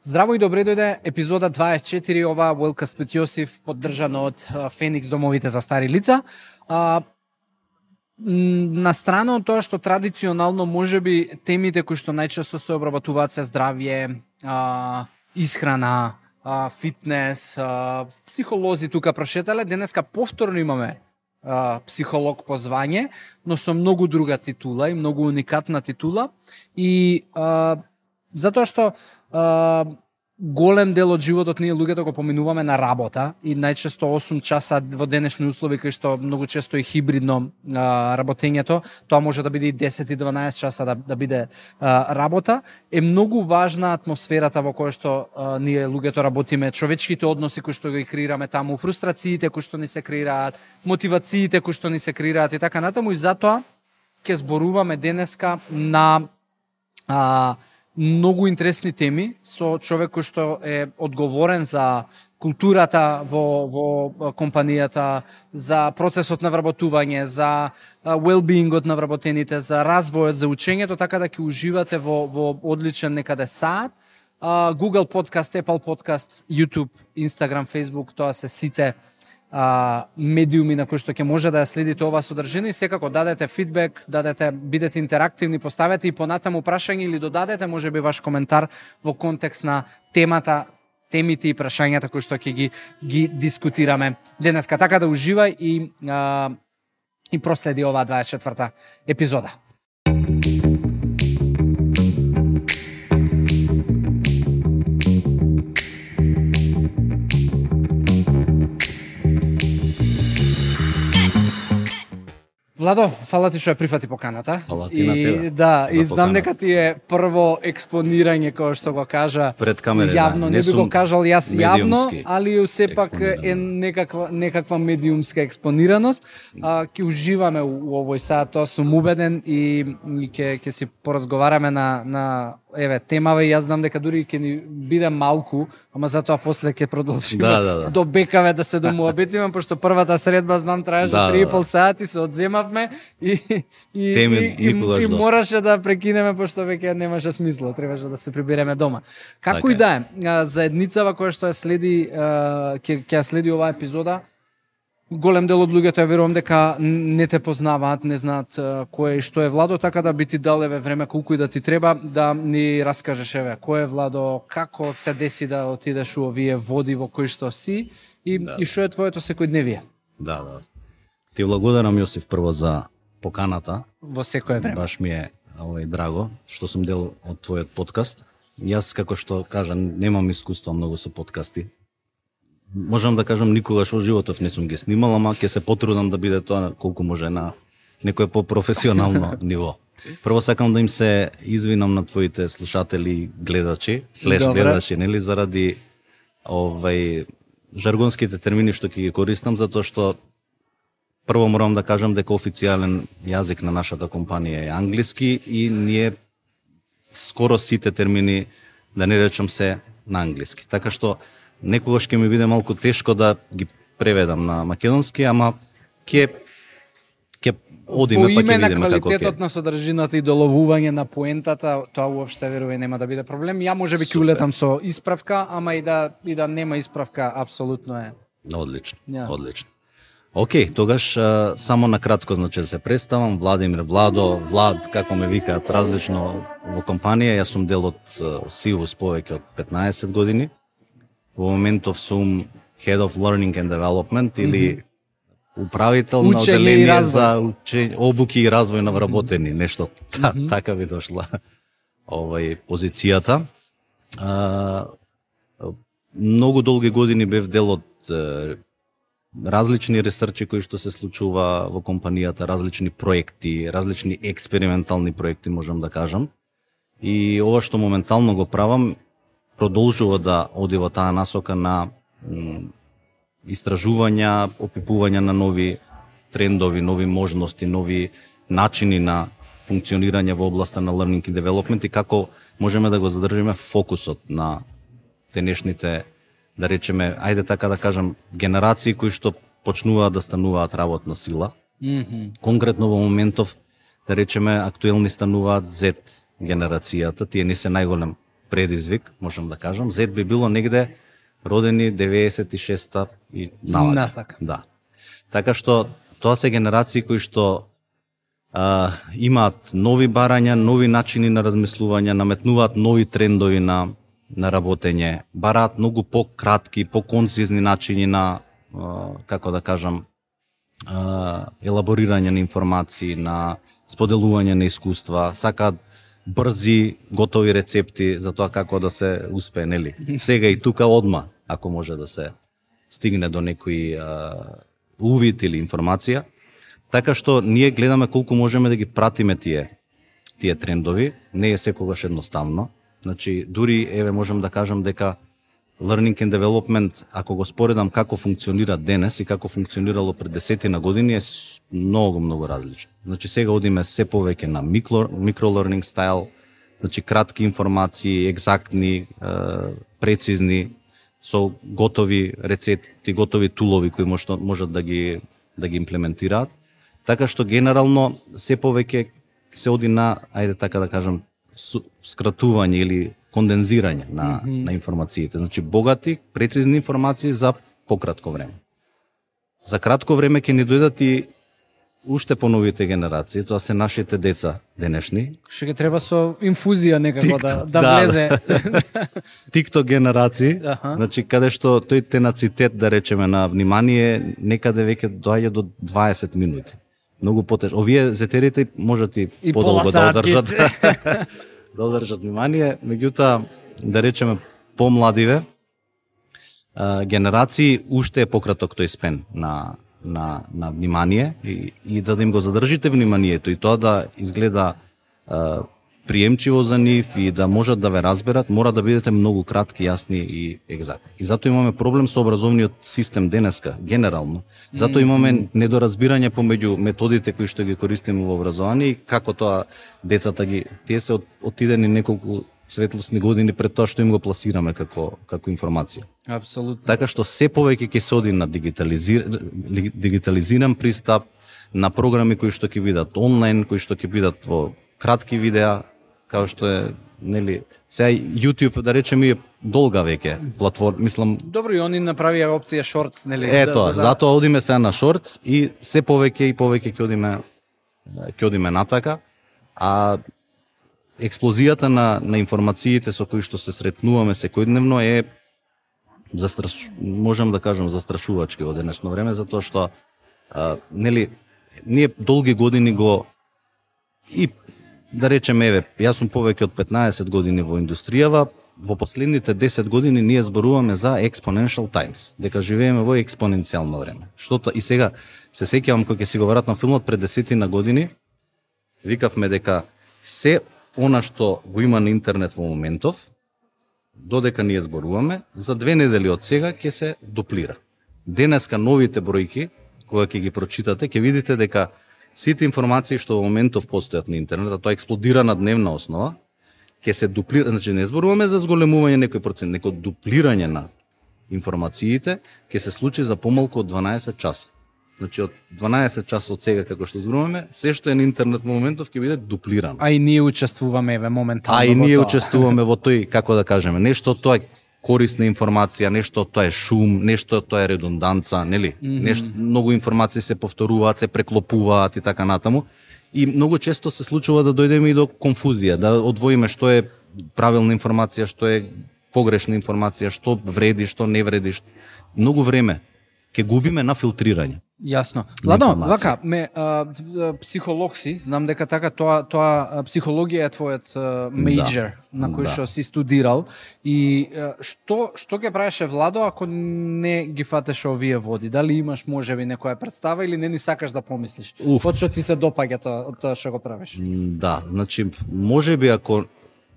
Здраво и добре дојде епизода 24, ова Уелкаст with Јосиф, поддржано од Феникс домовите за стари лица. На страна од тоа што традиционално можеби темите кои што најчесто се обработуваат се здравје, исхрана, фитнес, психолози тука прошетале. Денеска повторно имаме психолог по звање, но со многу друга титула и многу уникатна титула и затоа што голем дел од животот ние луѓето го поминуваме на работа и најчесто 8 часа во денешни услови кај што многу често е хибридно работењето, тоа може да биде и 10 и 12 часа да биде работа, е многу важна атмосферата во која што ние луѓето работиме, човечките односи кои што ги креираме таму, фрустрациите кои што ни се креираат, мотивациите кои што ни се креираат и така натаму, и затоа ќе зборуваме денеска на многу интересни теми со човек кој што е одговорен за културата во компанијата, за процесот на вработување, за well-beingот на вработените, за развојот, за учењето, така да ќе уживате во одличен некаде саат. Google Podcast, Apple Podcast, YouTube, Instagram, Facebook, тоа се сите медиуми на кои што ќе може да ја следите оваа содржина и секако дадете фидбек, бидете интерактивни, поставете и понатаму прашање или додадете можеби ваш коментар во контекст на темите и прашањата кои што ќе ги дискутираме денеска. Така да уживај и проследи оваа 24-та епизода. Владо, фала ти што ја прифати поканата. Фала ти на тебе. Да, и знам дека ти е прво експонирање, кој што го кажа пред камера. Јавно, да. не би го кажал јас јавно, али сепак е експонирано. некаква медиумска експонираност. Ќе уживаме у овој саат, тоа сум убеден и ќе си поразговараме на темава и јас знам дека дури ќе ни биде малку, ама затоа после ќе продолжиме до бекаве да се домуабетиме, пошто првата средба знам траеше 3,5 сати, се одземавме и мораше да прекинеме пошто веќе немаше смисла, требаше да се прибереме дома. Како и да е, заедницава која што ја следи, ќе ја следи оваа епизода, голем дел од луѓето ја верувам дека не те познаваат, не знаат кој и што е Владо, така да би ти дал време колку и да ти треба да ни раскажеш кој е Владо, како се деси да отидеш у овие води во кои што си и што е твоето секојдневие. Да. Ти благодарам, Јосиф, прво за поканата. Во секое време. Баш ми е драго што сум дел од твојот подкаст. Јас, како што кажа, немам искуство многу со подкасти. Можам да кажам, никогаш во животов не сум ги снимал, ама ќе се потрудам да биде тоа колку може на некое по-професионално ниво. Прво сакам да им се извинам на твоите слушатели, гледачи, гледачи, нели, заради жаргонските термини што ќе ги користам, затоа што прво морам да кажам дека официјален јазик на нашата компанија е англиски и ние скоро сите термини, да не речам, се на англиски. Така што некогаш ќе ми биде малку тешко да ги преведам на македонски, ама ќе одиме па ќе видиме како ќе. По име на квалитетот на содржината и доловување на поентата, тоа уопште верувам нема да биде проблем. Ја можеби ќе улетам со исправка, ама и да нема исправка, апсолутно е. Одлично. Океј, тогаш само на кратко, значи да се представам, Владимир, Владо, Влад, како ме викаат различно во компанија, јас сум дел од Сивус повеќе од 15 години. Во моментов сум Head of Learning and Development или управител на оделение за обуки и развој на вработени, нешто така би дошла позицијата. Многу долги години бев дел од различни ресерчи кои што се случува во компанијата, различни проекти, различни експериментални проекти, можам да кажам. И ова што моментално го правам продолжува да оди во таа насока на истражувања, опипување на нови трендови, нови можности, нови начини на функционирање во областа на learning and development и како можеме да го задржиме фокусот на денешните, да речеме, ајде така да кажам, генерации кои што почнуваат да стануваат работна сила. Конкретно во моментов, да речеме, актуелни стануваат Z генерацијата, тие не се најголем предизвик, можам да кажам. Z би било негде родени 96-та и навака. Да. Така што тоа се генерации кои што имаат нови барања, нови начини на размислување, наметнуваат нови трендови на работење, бараат многу пократки, поконцизни начини на, како да кажам, елаборирање на информации, на споделување на искуства, сакаат брзи, готови рецепти за тоа како да се успее, нели? Сега и тука одма, ако може да се стигне до некој увид или информација. Така што ние гледаме колку можеме да ги пратиме тие трендови, не е секогаш едноставно. Значи, дури, еве, можем да кажам дека Learning and Development, ако го споредам како функционира денес и како функционирало пред 10 години, е многу различно. Значи, сега одиме се повеќе на micro-learning style, значи кратки информации, екзактни, прецизни, со готови рецепти, готови тулови кои можат да ги имплементираат. Така што генерално се повеќе се оди на, ајде така да кажам, скратување или кондензирање на информациите. Значи богати, прецизни информации за пократко време. За кратко време ќе ни дојдат и уште поновите генерации, тоа се нашите деца денешни. Што ќе треба со инфузија некако да влезе. TikTok генерации, значи каде што тој тенацитет, да речеме, на внимание некаде веќе доаѓа до 20 минути. Многу потеж. Овие зетерите можат и подолго да одржат. Да одржат внимание, меѓутоа, да речеме, помладиве генерации уште е пократок тој спен на внимание и за да им го задржите вниманието и тоа да изгледа приемчиво за нив и да можат да ве разберат, мора да бидете многу кратки, јасни и екзактни. И затоа имаме проблем со образовниот систем денеска, генерално. Затоа имаме недоразбирање помеѓу методите кои што ги користиме во образование и како тоа децата тие се отидени неколку светлосни години пред тоа што им го пласираме како информација. Апсолутно. Така што се повеќе ќе се оди на дигитализиран пристап, на програми кои што ќе бидат онлайн, кои што ќе бидат во кратки видеа, као што е, нели, сега YouTube, да речеме, е долга веќе платформа, мислам. Добро, и они направија опција Shorts, нели? Ето, затоа одиме сега на Shorts и се повеќе ќе одиме натака, а експлозијата на информациите со кои што се сретнуваме секојдневно е можам да кажам застрашувачки во денешно време, затоа што нели ние долги години го и да речеме, еве, јас сум повеќе од 15 години во индустријава, во последните 10 години ние зборуваме за exponential times, дека живееме во експоненцијално време. Штото и сега се сеќавам кога ќе си го вратам филмот пред 10 години, викавме дека се она што го има на интернет во моментов, додека ние зборуваме, за 2 недели од сега ќе се дуплира. Денеска новите бројки, кога ќе ги прочитате, ќе видите дека сите информации што во моментов постојат на интернет, а тоа експлодира на дневна основа, ќе се дуплира, значи не зборуваме за зголемување некој процент, некој дуплирање на информациите ќе се случи за помалку од 12 часа. Значи од 12 часа од сега како што зборуваме, се што е на интернет во моментов ќе биде дуплирано. А и ние учествуваме еве моментално. А и ние учествуваме во тој, како да кажеме, нешто тоа е корисна информација, нешто тоа е шум, нешто тоа е редунданца, нели? Нешто многу информации се повторуваат, се преклопуваат и така натаму. И многу често се случува да дојдеме и до конфузија, да одвоиме што е правилна информација, што е погрешна информација, што вреди, што не вреди. Многу време ќе губиме на филтрирање. Јасно. Ладно, вака, психолог си, знам дека така тоа психологија е твојот мејџор на кој што си студирал и што ќе правеше Владо ако не ги фатеше овие води? Дали имаш можеби некоја представа или не ни сакаш да помислиш? Од што ти се допаѓа тоа што го правиш? Да, значи можеби ако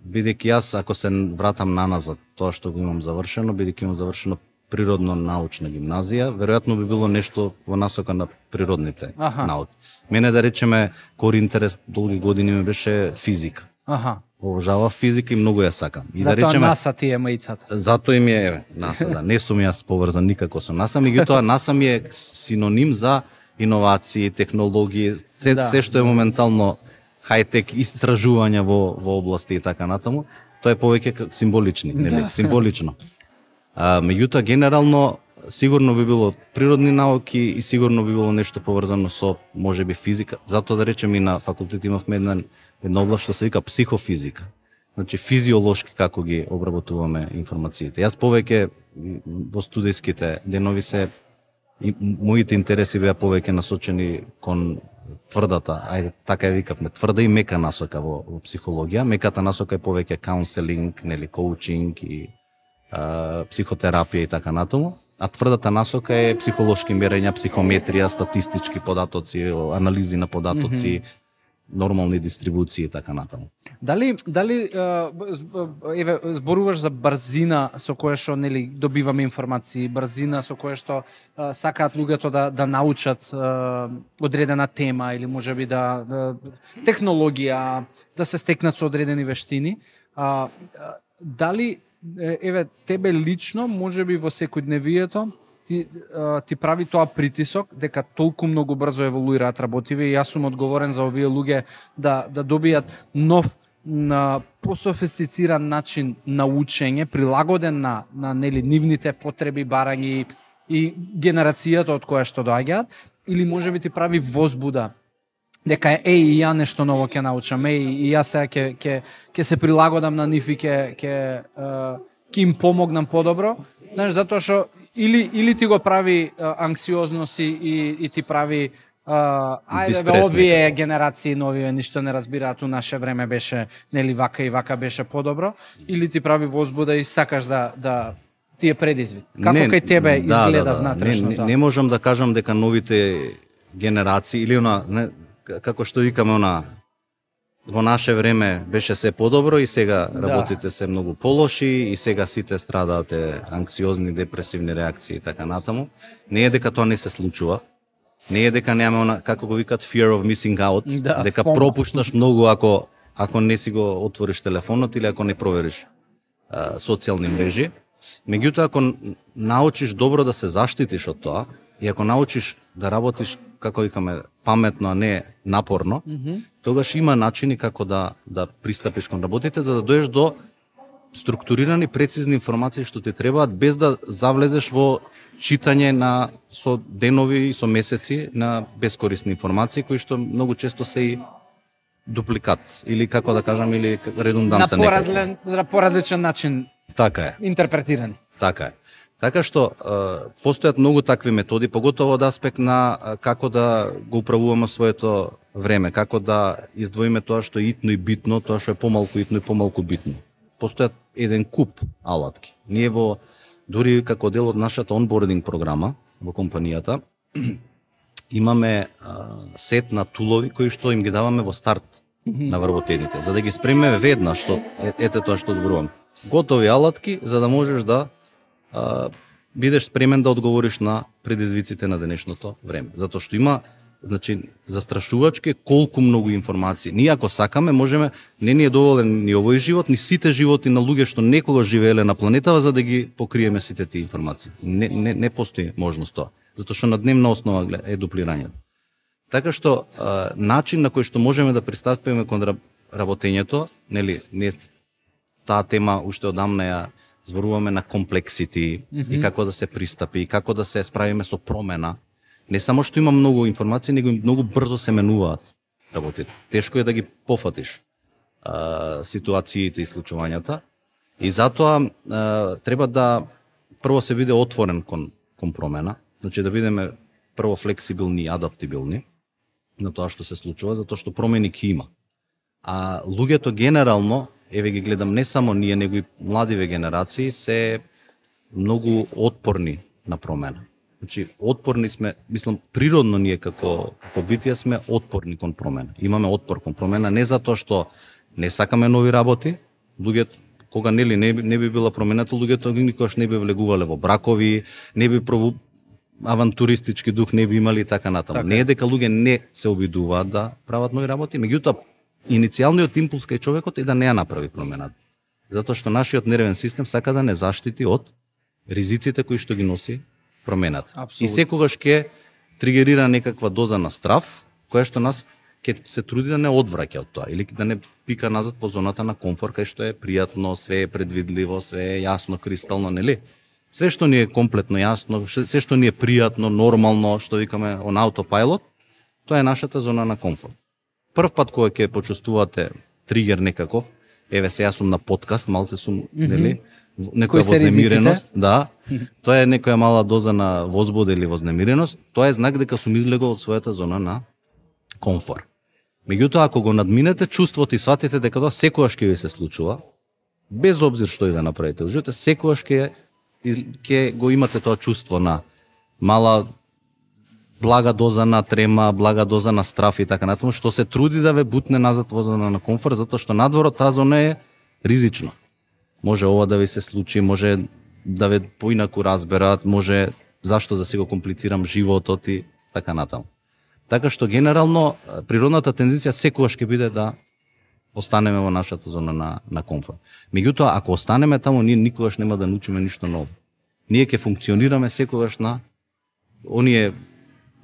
бидејќи јас ако се вратам наназад тоа што го имам завршено, бидејќи имам завршено природно-научна гимназија, веројатно би било нешто во насока на природните науки. Мене, да речеме, кори интерес долги години ми беше физика. Обожавав физика и многу ја сакам. И затоа да речеме, НАСА ти е маицата. Затоа им е, еве, НАСА, да. Не сум јас поврзан никако со НАСА, меѓутоа НАСА ми е синоним за иновации, технологии, се што е моментално хајтек, истражувања во области и така натаму. Тоа е повеќе символични, нели, символично. Меѓутоа генерално сигурно би било природни науки и сигурно би било нешто поврзано со можеби физика. Затоа да речем и на факултет имавме една област што се вика психофизика. Значи физиолошки како ги обработуваме информациите. Јас повеќе во студентските денови моите интереси беа повеќе насочени кон тврдата, ајде така ја викавме, тврда и мека насока во психологија. Меката насока е повеќе каунселинг, нели, коучинг и психотерапија и така натаму. А тврдата насока е психолошки мерења, психометрија, статистички податоци, анализи на податоци, нормални дистрибуции и така натаму. Дали зборуваш за брзина со која што нели добиваме информации, брзина со која што сакаат луѓето да научат одредена тема или можеби технологија, да се стекнат со одредени вештини. Дали тебе лично, можеби во секојдневието, ти прави тоа притисок дека толку многу брзо еволуираат работиве и јас сум одговорен за овие луѓе да добијат нов, пософистициран начин на учење, прилагоден на нели нивните потреби, барања и генерацијата од која што доаѓаат, или можеби ти прави возбуда дека и ја нешто ново ќе научам, и јас сега ќе се прилагодам на нив и ќе им помогнам подобро, знаеш, затоа што или ти го прави анксиозност и ти прави овие генерации нови ништо не разбираат, у наше време беше нели вака и вака беше подобро, или ти прави возбуда и сакаш да ти е предизвик. Како кај тебе изгледа внатрешно тоа? Не можам да кажам дека новите генерации или како што викаме во наше време беше се подобро и сега работите се многу полоши и сега сите страдаат анксиозни, депресивни реакции и така натаму. Не е дека тоа не се случува. Не е дека немаме како го викаат fear of missing out, дека пропушташ многу ако не си го отвориш телефонот или ако не провериш социјални мрежи. Меѓутоа, ако научиш добро да се заштитиш од тоа и ако научиш да работиш, како викаме, паметно, а не напорно, тогаш има начини како да пристапиш кон работите, за да доеш до структурирани, прецизни информации што ти требаат, без да завлезеш во читање со денови и со месеци на бескорисни информации, кои што многу често се и дупликат, или како да кажам, или редунданца некако. На поразличен начин интерпретирани. Така е. Така што постојат многу такви методи, поготово од аспект на како да го управуваме своето време, како да издвоиме тоа што е итно и битно, тоа што е помалку итно и помалку битно. Постојат еден куп алатки. Ние дури како дел од нашата онбординг програма во компанијата, имаме сет на тулови кои што им ги даваме во старт на вработените, за да ги спремиме веднаш, ете тоа што зборувам. Готови алатки за да можеш да бидеш спремен да одговориш на предизвиците на денешното време. Затоа што има, значи, застрашувачки колку многу информации. Ние ако сакаме, можеме, не ни е доволен ни овој живот, ни сите животи на луѓе што некогаш живееле на планетава, за да ги покриеме сите тие информации. Не постои можност тоа. Затоа што на дневна основа е дуплирањето. Така што начин на кој што можеме да пристапиме кон работењето, нели, не таа тема уште одамна ја зборуваме на комплексити и како да се пристапи, и како да се справиме со промена. Не само што има многу информации, него многу брзо се менуваат работите. Тешко е да ги пофатиш ситуациите и случувањата. И затоа треба да прво се биде отворен кон промена, значи да бидеме прво флексибилни и адаптибилни на тоа што се случува, затоа што промени ќе има. А луѓето генерално, еве ги гледам, не само ние, него и младиве генерации се многу отпорни на промена. Значи, отпорни сме, мислам, природно ние како битија сме отпорни кон промена. Имаме отпор кон промена не затоа што не сакаме нови работи, луѓето кога не би била промената, луѓето никогаш не би влегувале во бракови, не би авантуристички дух не би имали и така натаму. Не е дека луѓе не се обидуваат да прават нови работи, меѓутоа иницијалниот импулс кај човекот е да не ја направи промената. Затоа што нашиот нервен систем сака да не заштити од ризиците кои што ги носи промената. Абсолютно. И секогаш ќе тригерира некаква доза на страв, која што нас ќе се труди да не одвраќа од тоа или да не пика назад по зоната на комфорт, кај што е пријатно, све е предвидливо, све е јасно, кристално, нели? Све што ни е комплетно јасно, све што ни е пријатно, нормално, што викаме on autopilot, тоа е нашата зона на комфорт. Прв пат кога ќе почувствувате тригер некаков, еве се јас сум на подкаст, малце сум, нели, некоја вознемиреност, да, тоа е некоја мала доза на возбуда или вознемиреност, тоа е знак дека сум излегол од својата зона на комфорт. Меѓутоа, ако го надминете чувството и сватите дека тоа секогаш ќе ви се случува, без обзир што и да направите, секогаш ќе го имате тоа чувство на мала блага доза на трема, блага доза на страф и така натаму, што се труди да ве бутне назад во зона на комфорт, затоа што надворот таа зона е ризично. Може ова да ви се случи, може да ве поинаку разберат, може зашто да си го комплицирам животот и така натаму. Така што генерално природната тенденција секогаш ќе биде да останеме во нашата зона на комфорт. Меѓутоа, ако останеме таму, ние никогаш нема да научиме ништо ново. Ние ќе функционираме секогаш на оние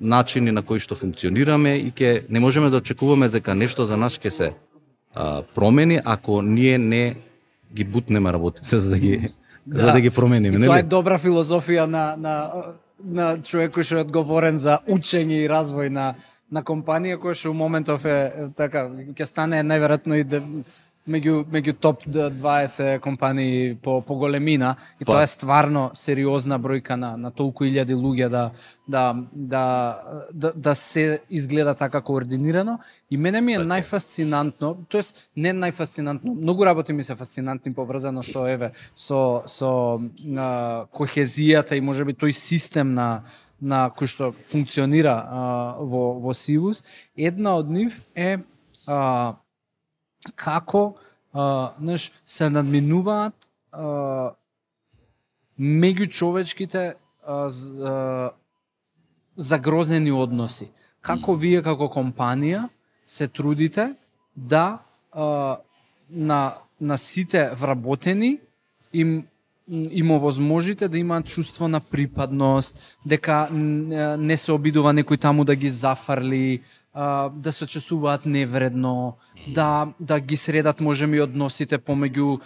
начини на кои што функционираме и не можеме да очекуваме дека нешто за нас ќе се промени ако ние не ги бутнеме работите за да ги промениме. Тоа е добра филозофија на човек кој што е одговорен за учење и развој на компанија која што у моментов е така ќе стане најверојатно и меѓу топ 20 компании по големина и тоа е стварно сериозна бројка на толку илјади луѓе да се изгледа така координирано и мене ми е најфасцинантно, тоест не најфасцинантно, многу работи ми се фасцинантни поврзано со кохезијата и можеби тој систем на кој што функционира во Сивус. Една од нив е како се надминуваат меѓучовечките загрозени односи. Како вие како компанија се трудите да на сите вработени им овозможите да имаат чувство на припадност, дека не се обидува некој таму да ги зафарли, да се чувствуваат невредно, да ги средат можеби односите помеѓу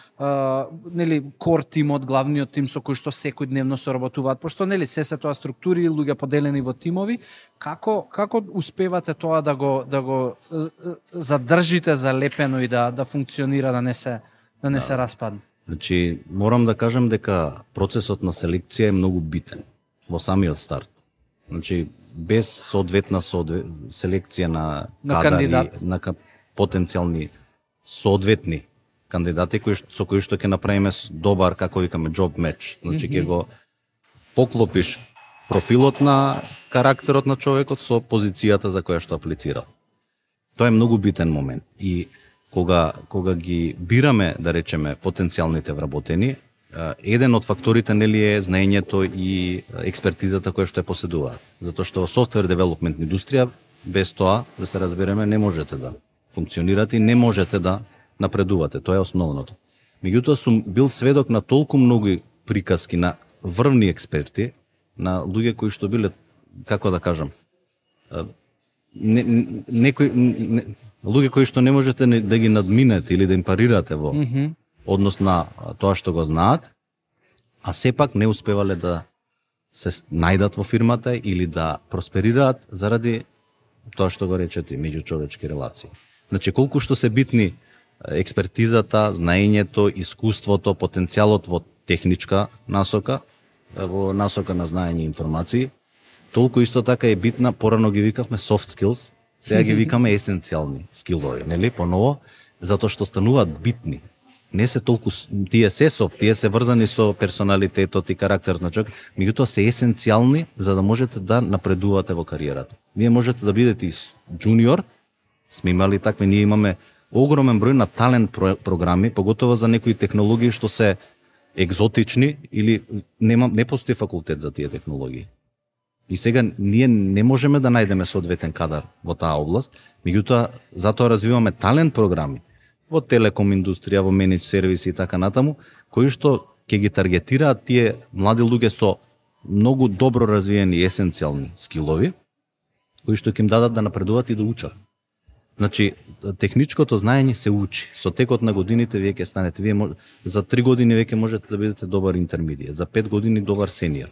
нели кор тимот, главниот тим со кој што секојдневно соработуваат, пошто нели се тоа структури, луѓе поделени во тимови, како успевате тоа да го задржите залепено и да функционира, да не се распадне? Значи, морам да кажам дека процесот на селекција е многу битен во самиот старт. Значи, без соодветна селекција на кадари, на потенцијални соодветни кандидати со кои што ќе направиме добар, како викаме, job match. Значи, ќе го поклопиш профилот на карактерот на човекот со позицијата за која што аплицирал. Тоа е многу битен момент. И кога ги бираме, да речеме, потенцијалните вработени, еден од факторите нели е знаењето и експертизата која што е поседуваат. Затоа што во софтвер девелопмент индустрија без тоа, да се разбереме, не можете да функционирате и не можете да напредувате. Тоа е основното. Меѓутоа сум бил сведок на толку многу приказки на врвни експерти, на луѓе кои што биле, како да кажам, луѓе кои што не можете да ги надминете или да им парирате во однос на тоа што го знаат, а сепак не успевале да се најдат во фирмата или да просперираат заради тоа што го речете, меѓучовечки релации. Значи, колку што се битни експертизата, знаењето, искуството, потенцијалот во техничка насока, во насока на знаење и информации, толку исто така е битна, порано ги викавме soft skills, сега ги викаме есенцијални скилови, нели, поново, затоа што стануваат битни. Не се толку, тие се софт, тие се врзани со персоналитетот и карактерот на човек, меѓутоа се есенцијални за да можете да напредувате во кариерата. Вие можете да бидете и джуниор, сме имали такви, ние имаме огромен број на талент програми, поготово за некои технологии што се екзотични или не постои факултет за тие технологии. И сега ние не можеме да најдеме соодветен кадар во таа област, меѓутоа затоа развиваме талент програми во телеком индустрија, во менедж сервиси и така натаму, кои што ќе ги таргетираат тие млади луѓе со многу добро развиени есенцијални скилови, кои што ќе им дадат да напредуваат и да учат. Значи, техничкото знаење се учи. Со текот на годините вие ќе станете, за 3 години веќе можете да бидете добар интермедијат, за 5 години добар сениор.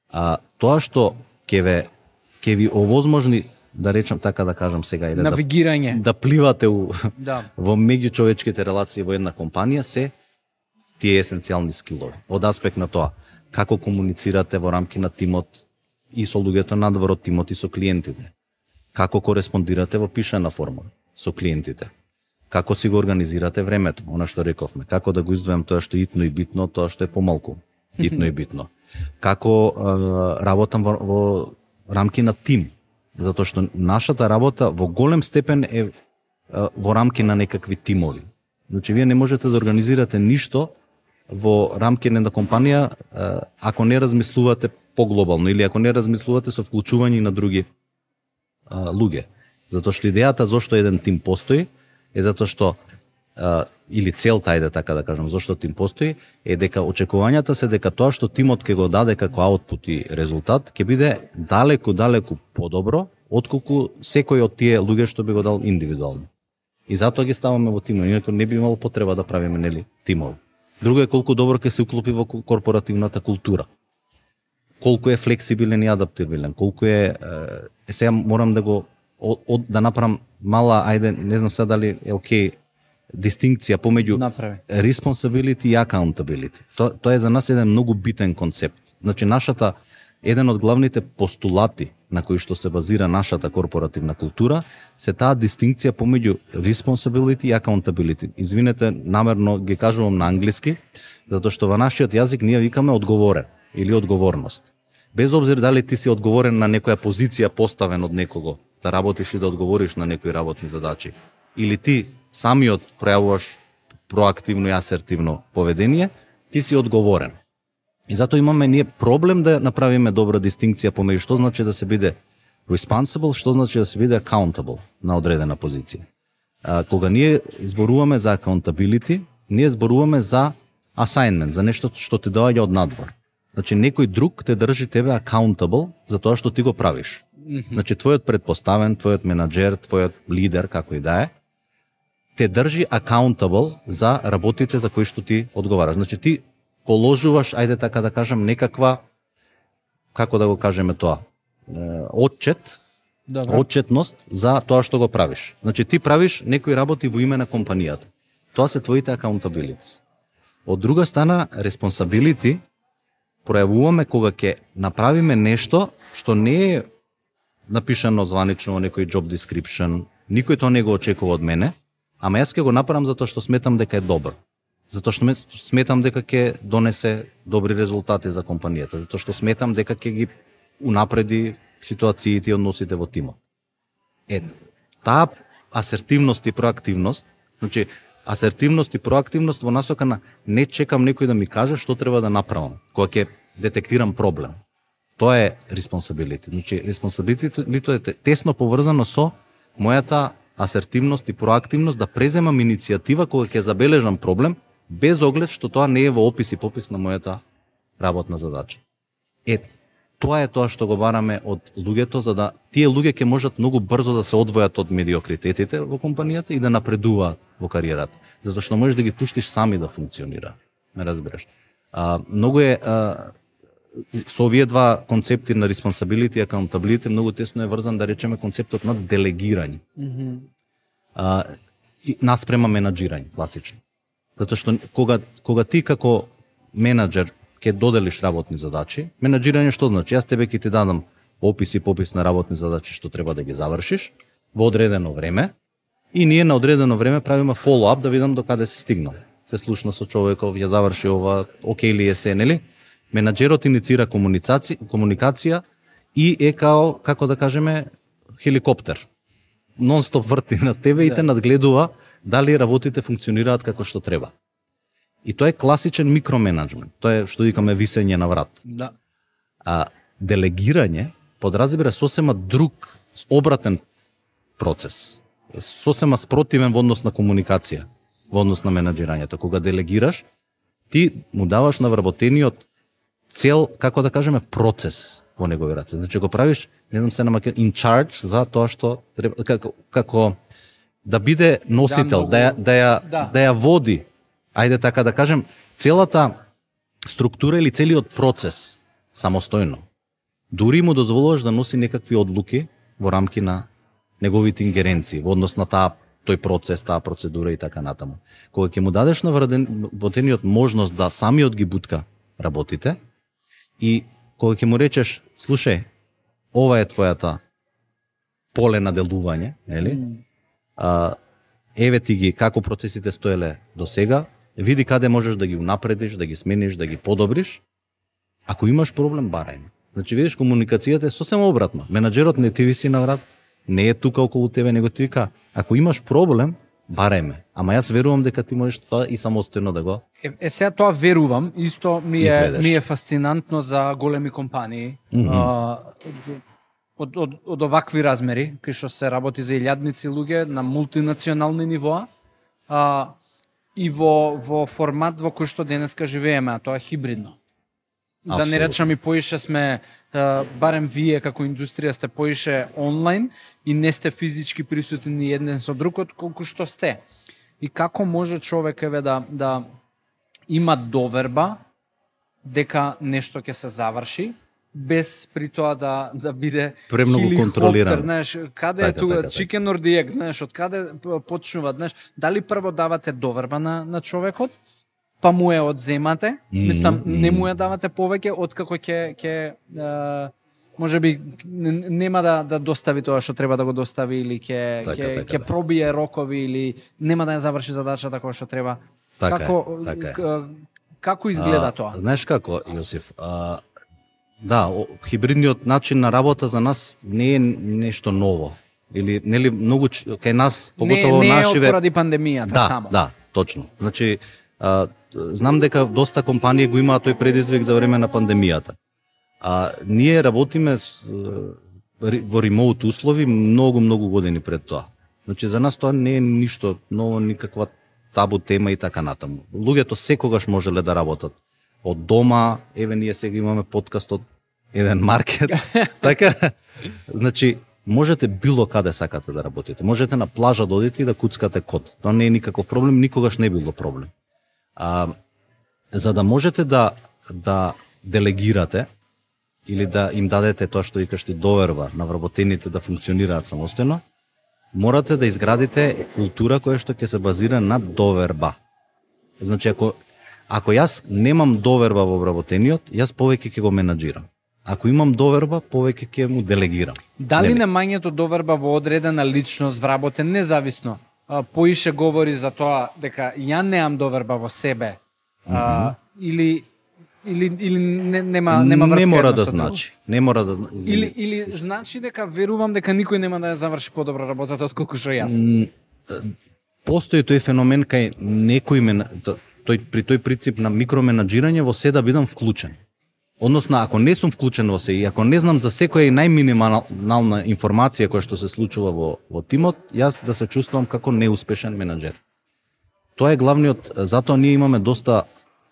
А тоа што ќе ви овозможни, да речам така да кажам сега, навигирање, да пливате во меѓучовечките релации во една компанија, се тие есенцијални скилови. Од аспект на тоа, како комуницирате во рамки на тимот и со луѓето надвор од тимот и со клиентите. Како кореспондирате во пишана форма со клиентите. Како си го организирате времето, она што рековме. Како да го издвојам тоа што е итно и битно, тоа што е помалку итно и битно. Како работам во рамки на тим, затоа што нашата работа во голем степен е во рамки на некакви тимови. Значи, вие не можете да организирате ништо во рамки на една компанија ако не размислувате поглобално или ако не размислувате со вклучување на други луѓе. Затоа што идејата зошто еден тим постои е затоа што или целта е така да кажам зошто тим постои е дека очекувањата се дека тоа што тимот ќе го даде како аутпут и резултат ќе биде далеку подобро отколку секој од тие луѓе што би го дал индивидуално. И затоа ги ставаме во тимови, инаку не би имало потреба да правиме нели тимови. Друго е колку добро ќе се уклопи во корпоративната култура. Колку е флексибилен и адаптивилен, колку е сега морам да го да направам мала, ајде, не знам сега дали е окей, дистинкција помеѓу responsibility и accountability. Тоа е за нас еден многу битен концепт. Значи, еден од главните постулати на кои што се базира нашата корпоративна култура се таа дистинкција помеѓу responsibility и accountability. Извинете, намерно ги кажувам на англиски, затоа што во нашиот јазик ние викаме одговорен или одговорност. Без обзир дали ти си одговорен на некоја позиција поставен од некого, да работиш и да одговориш на некои работни задачи, или ти самиот пројавуваш проактивно и асертивно поведение, ти си одговорен. И затоа имаме ние проблем да направиме добра дистинкција помеѓу што значи да се биде responsible, што значи да се биде accountable на одредена позиција. Кога ние зборуваме за accountability, ние зборуваме за assignment, за нешто што ти доаѓа од надвор. Значи, некој друг те држи тебе accountable за тоа што ти го правиш. Значи, твојот предпоставен, твојот менаџер, твојот лидер, како и да е, те држи accountable за работите за кои што ти одговараш. Значи, ти положуваш, ајде така да кажам, некаква, како да го кажеме тоа, отчетност за тоа што го правиш. Значи, ти правиш некои работи во име на компанијата. Тоа се твоите accountabilities. Од друга страна, responsibility пројавуваме кога ќе направиме нешто што не е напишано званично во некој job description, никој тоа не го очекува од мене, ама јас ќе го направам затоа што сметам дека е добро. Затоа што сметам дека ќе донесе добри резултати за компанијата, затоа што сметам дека ќе ги унапреди ситуациите и односите во тимот. Таа асертивност и проактивност, значи асертивност и проактивност во насока на не чекам некој да ми каже што треба да направам, кога ќе детектирам проблем. Тоа е responsibility. Значи, responsibility е тесно поврзано со мојата асертивност и проактивност да преземам иницијатива кога ќе забележам проблем, без оглед што тоа не е во опис и попис на мојата работна задача. Тоа е тоа што го бараме од луѓето, за да тие луѓе ќе можат многу брзо да се одвојат од медиокритетите во компанијата и да напредуваат во кариерата. Затоа што можеш да ги пуштиш сами да функционира. Ме разбираш. Многу е со овие два концепти на responsibility и accountability многу тесно е врзан, да речеме, концептот на делегирање. Наспрема менаџирање, класично. Затоа што кога ти како менаџер ќе доделиш работни задачи, менаџирање што значи? Јас тебе ќе ти дадам опис и попис на работни задачи што треба да ги завршиш во одредено време и ние на одредено време правиме follow-up да видам до каде се стигнал. Се слушна со човеков, ја заврши ова, окей ли е се, нели? Менаџерот иницира комуникација и е како да кажеме, хеликоптер. Нон-стоп врти на тебе и те надгледува дали работите функционираат како што треба. И тоа е класичен микроменеджмент. Тоа е што викаме висење на врат. Да. Делегирање подразбира сосема друг, обратен процес. Сосема спротивен во однос на комуникација, во однос на менаџирањето. Кога делегираш, ти му даваш на вработениот цел, како да кажеме, процес во негови раце. Значи го правиш, не знам се на in charge за тоа што треба, како да биде носител, да ја води. Ајде така да кажем, целата структура или целиот процес самостојно. Дури му дозволуваш да носи некакви одлуки во рамки на неговите ингеренции во однос на тој процес, таа процедура и така натаму. Кога ќе му дадеш на вработениот можност да самиот ги бутка работите и кога ќе му речеш, слушај, ова е твојата поле на делување, нели? Еве ти ги како процесите стоеле до сега, види каде можеш да ги унапредиш, да ги смениш, да ги подобриш. Ако имаш проблем, барај ме. Значи видиш, комуникацијата е сосема обратно. Менаџерот не ти виси на врат, не е тука околу тебе, него ти вика, ако имаш проблем, барај ме. Ама јас верувам дека ти можеш тоа и самостојно да го. Сега тоа верувам, исто ми е фасцинантно за големи компании. Од овакви размери, кај што се работи за илјадници луѓе на мултинационални нивоа, и во формат во кој што денеска живееме, а тоа е хибридно. Да не речам и поише сме, барем вие како индустрија сте поише онлайн и не сте физички присутни еден со другот колку што сте. И како може човек да има доверба дека нешто ќе се заврши, без при тоа да биде премногу контролирано. Знаеш, каде е тука chicken or the egg, знаеш, од каде почнува, знаеш, дали прво давате доверба на човекот, па му ја одземате, мислам, не му ја давате повеќе, откако ќе можеби нема да достави тоа што треба да го достави или ќе пробие рокови или нема да ја заврши задачата која што треба. Како изгледа тоа? Знаеш како, Јосиф? Да, хибридниот начин на работа за нас не е нешто ново. Или нели многу кај нас, поготово нашиве. Не е поради пандемијата само. Да, точно. Значи знам дека доста компании го имаат тој предизвик за време на пандемијата. Ние работиме во ремоут услови многу години пред тоа. Значи за нас тоа не е ништо ново, никаква табу тема и така натаму. Луѓето секогаш можеле да работат од дома, еве ние сега имаме подкаст од еден маркет. Така, значи можете било каде сакате да работите. Можете на плажа да одите и да куцкате код. Тоа не е никаков проблем, никогаш не било проблем. За да можете да делегирате или да им дадете тоа што викаш ти доверба на вработените да функционираат самостојно, морате да изградите култура која што ќе се базира на доверба. Значи ако јас немам доверба во вработениот, јас повеќе ќе го менаџирам. Ако имам доверба, повеќе ќе му делегирам. Дали немањето доверба во одредена личност вработен независно поише говори за тоа дека ја немам доверба во себе, или нема врска? Не мора да значи. Не мора да или значи дека верувам дека никој нема да ја заврши подобро работата отколку што јас. Постои тој феномен кај некој при тој принцип на микроменаџирање во се да бидам вклучен. Односно, ако не сум вклучен во се и ако не знам за секоја и најминимална информација која што се случува во тимот, јас да се чувствувам како неуспешен менаџер. Тоа е главниот, затоа ние имаме доста,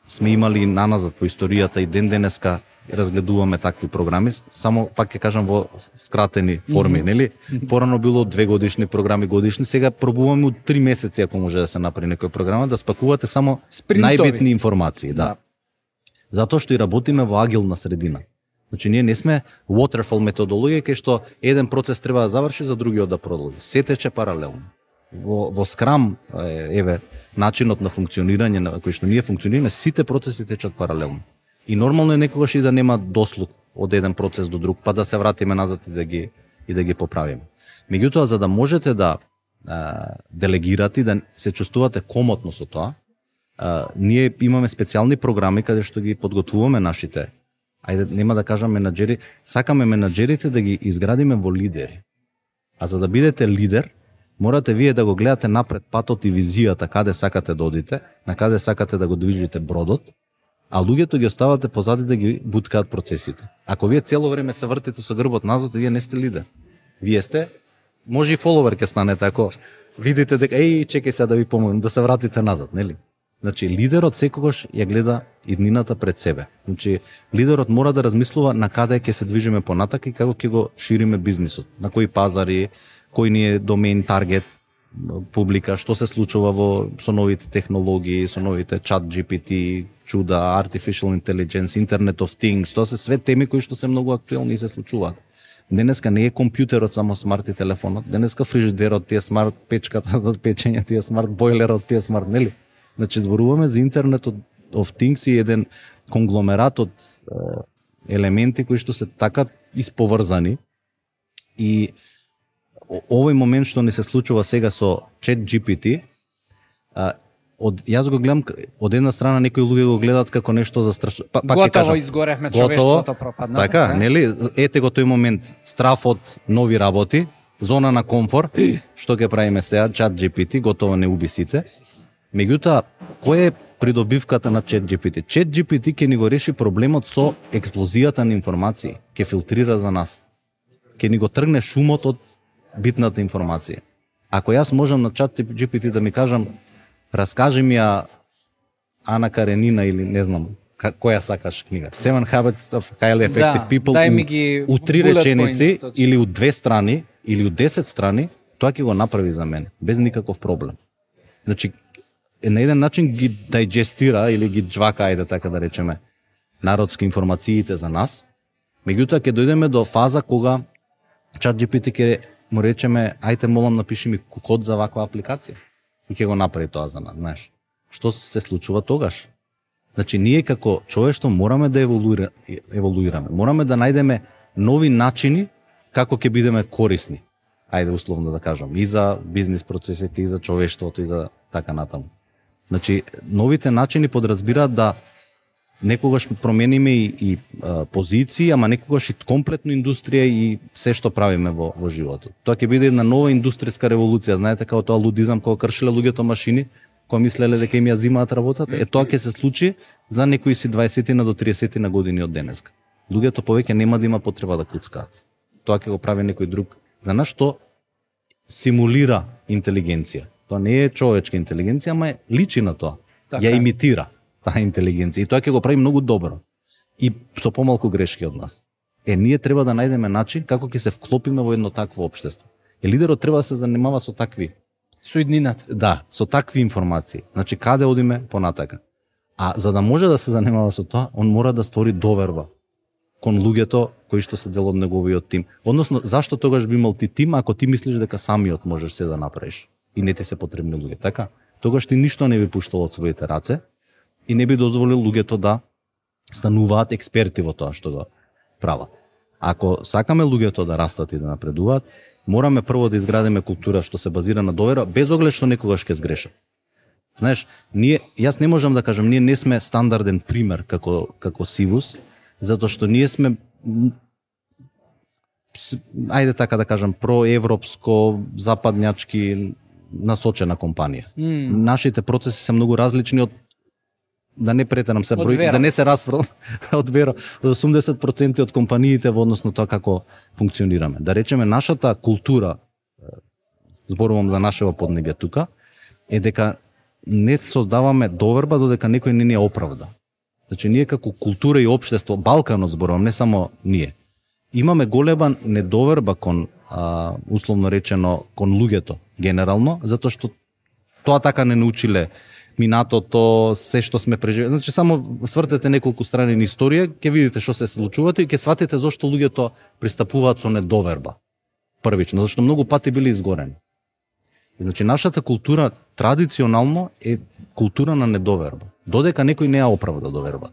сме имали наназад по историјата и ден денеска разгледуваме такви програми, само пак ќе кажам во скратени форми, нели? Порано било 2 годишни програми, годишни, сега пробуваме од 3 месеци ако може да се направи некоја програма да спакувате само најбитни информации, да. Затоа што и работиме во агилна средина. Значи ние не сме waterfall методологија кај што еден процес треба да заврши за другиот да продолжи. Се тече паралелно. Во Scrum, еве, начинот на функционирање на кој што ние функционираме, сите процеси течат паралелно. И нормално е некогаш и да нема дослуг од еден процес до друг, па да се вратиме назад и да ги поправиме. Меѓутоа, за да можете да делегирате и да се чувствувате комотно со тоа, ние имаме специјални програми каде што ги подготвуваме нашите, ајде нема да кажам менаџери, сакаме менаџерите да ги изградиме во лидери. А за да бидете лидер, морате вие да го гледате напред патот и визијата каде сакате да одите, на каде сакате да го движите бродот, а луѓето ги оставате позади да ги буткаат процесите. Ако вие цело време се вртите со грбот назад, вие не сте лидер. Вие сте, може и фоловер ќе станете ако видите дека чекај сега да ви помогнам, да се вратите назад, нели? Значи лидерот секогаш ја гледа иднината пред себе. Значи лидерот мора да размислува на каде ќе се движиме понатака и како ќе го шириме бизнисот, на кои пазари, кој ни е домейн таргет, публика, што се случува со новите технологии, со новите чат GPT, чуда, artificial intelligence, Internet of Things, тоа се све теми кои што се многу актуелни и се случуваат. Денеска не е компјутерот само смарт и телефонот, денеска фрижидерот ти е смарт, печката за печење ти е смарт, бойлерот ти е смарт, нели? Значи зборуваме за Internet of Things и еден конгломерат од елементи кои што се така исповрзани и овој момент што ни се случува сега со ChatGPT, јас го гледам од една страна некои луѓе го гледаат како нешто застрашуващо. Готово изгоревме, човештвото пропадна. Така, нели? Ете го тој момент, страф од нови работи, зона на комфор, што ќе правиме сега, ChatGPT, готово не уби сите. Меѓутоа, кој е придобивката на ChatGPT? ChatGPT ќе ни го реши проблемот со експлозијата на информации, ќе филтрира за нас. Ќе ни го тргне шумот од битната информација. Ако јас можам на ChatGPT да ми кажам, раскажи ми ја Ана Каренина или не знам која сакаш книга. 7 Habits of Highly Effective People у 3 реченици или у 2 страни или у 10 страни, тоа ќе го направи за мен без никаков проблем. Значи на еден начин ги дайджестира или ги джвака, ајде така да речеме, народски информациите за нас. Меѓутоа ќе дојдеме до фаза кога ChatGPT ќе му речеме, ајте молам напиши ми код за ваква апликација. И ќе го направи тоа за нас, знаеш. Што се случува тогаш? Значи, ние како човештво мораме да еволуираме. Мораме да најдеме нови начини како ќе бидеме корисни. Ајде условно да кажам, и за бизнис процесите, и за човештвото, и за така натаму. Значи, новите начини подразбираат да некогаш промениме и позиции, ама некогаш и комплетно индустрија и се што правиме во животот. Тоа ќе биде една нова индустријска револуција, знаете, како тоа лудизам, кога кршиле луѓето машини, кога мислеле дека им ја зимаат работата, тоа ќе се случи за некои си 20 до 30 години од денеска. Луѓето повеќе нема да има потреба да куцкаат. Тоа ќе го прави некој друг. За нас што симулира интелигенција. Тоа не е човечка интелигенција, ама личи на тоа. Така. Ја имитира таа интелигенција и тоа ќе го прави многу добро и со помалку грешки од нас. Ние треба да најдеме начин како ќе се вклопиме во едно такво општество. Лидерот треба да се занимава со такви иднината. Да, со такви информации. Значи каде одиме понатака. А за да може да се занимава со тоа, он мора да створи доверба кон луѓето кои што се дел од неговиот тим. Односно, зашто тогаш би имал ти тим ако ти мислиш дека самиот можеш се да направиш и не ти се потребни луѓе, така? Тогаш ти ништо не би пуштал од своите раце и не би дозволил луѓето да стануваат експерти во тоа што го прават. Ако сакаме луѓето да растат и да напредуваат, мораме прво да изградиме култура што се базира на доверба, без оглед што некогаш ќе сгрешат. Знаеш, јас не можам да кажам, ние не сме стандарден пример како Сивус, затоа што ние сме, ајде така да кажам, проевропско, западњачки насочена компанија. Нашите процеси се многу различни од, да не претерам се број, да не се расфрлам од вера, 80% од компаниите во однос на тоа како функционираме. Да речеме, нашата култура, зборувам за нашево поднебје тука, е дека не создаваме доверба додека некој не ни ја оправда. Значи, ние како култура и општество, Балканот зборувам, не само ние, имаме голема недоверба кон, условно речено, кон луѓето, генерално, затоа што тоа така не научиле минатото, се што сме преживели. Значи, само свртете неколку страни на историја, ќе видите што се случувате и ќе сватите зошто луѓето пристапуваат со недоверба. Првично, зашто многу пати били изгорени. Значи, нашата култура традиционално е култура на недоверба. Додека некој не ја оправда доверба.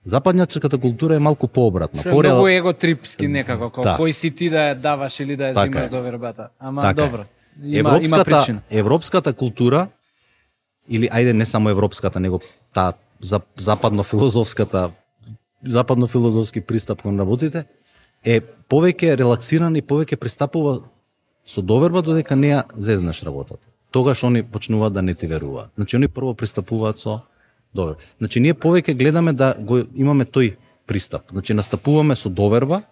Западњачката култура е малку пообратна. Што е многу еготрипски некако, да. Кој си ти да ја даваш или да ја така зимаш довербата. Ама така добро, има причина. Европската култура, или ајде не само европската, него таа западно-филозофски пристап кон работите, е повеќе релаксиран и повеќе пристапува со доверба додека не ја зезнеш работата. Тогаш они почнуваат да не ти веруваат. Значи, они прво пристапуваат со доверба. Значи, ние повеќе гледаме да го имаме тој пристап. Значи, настапуваме со доверба,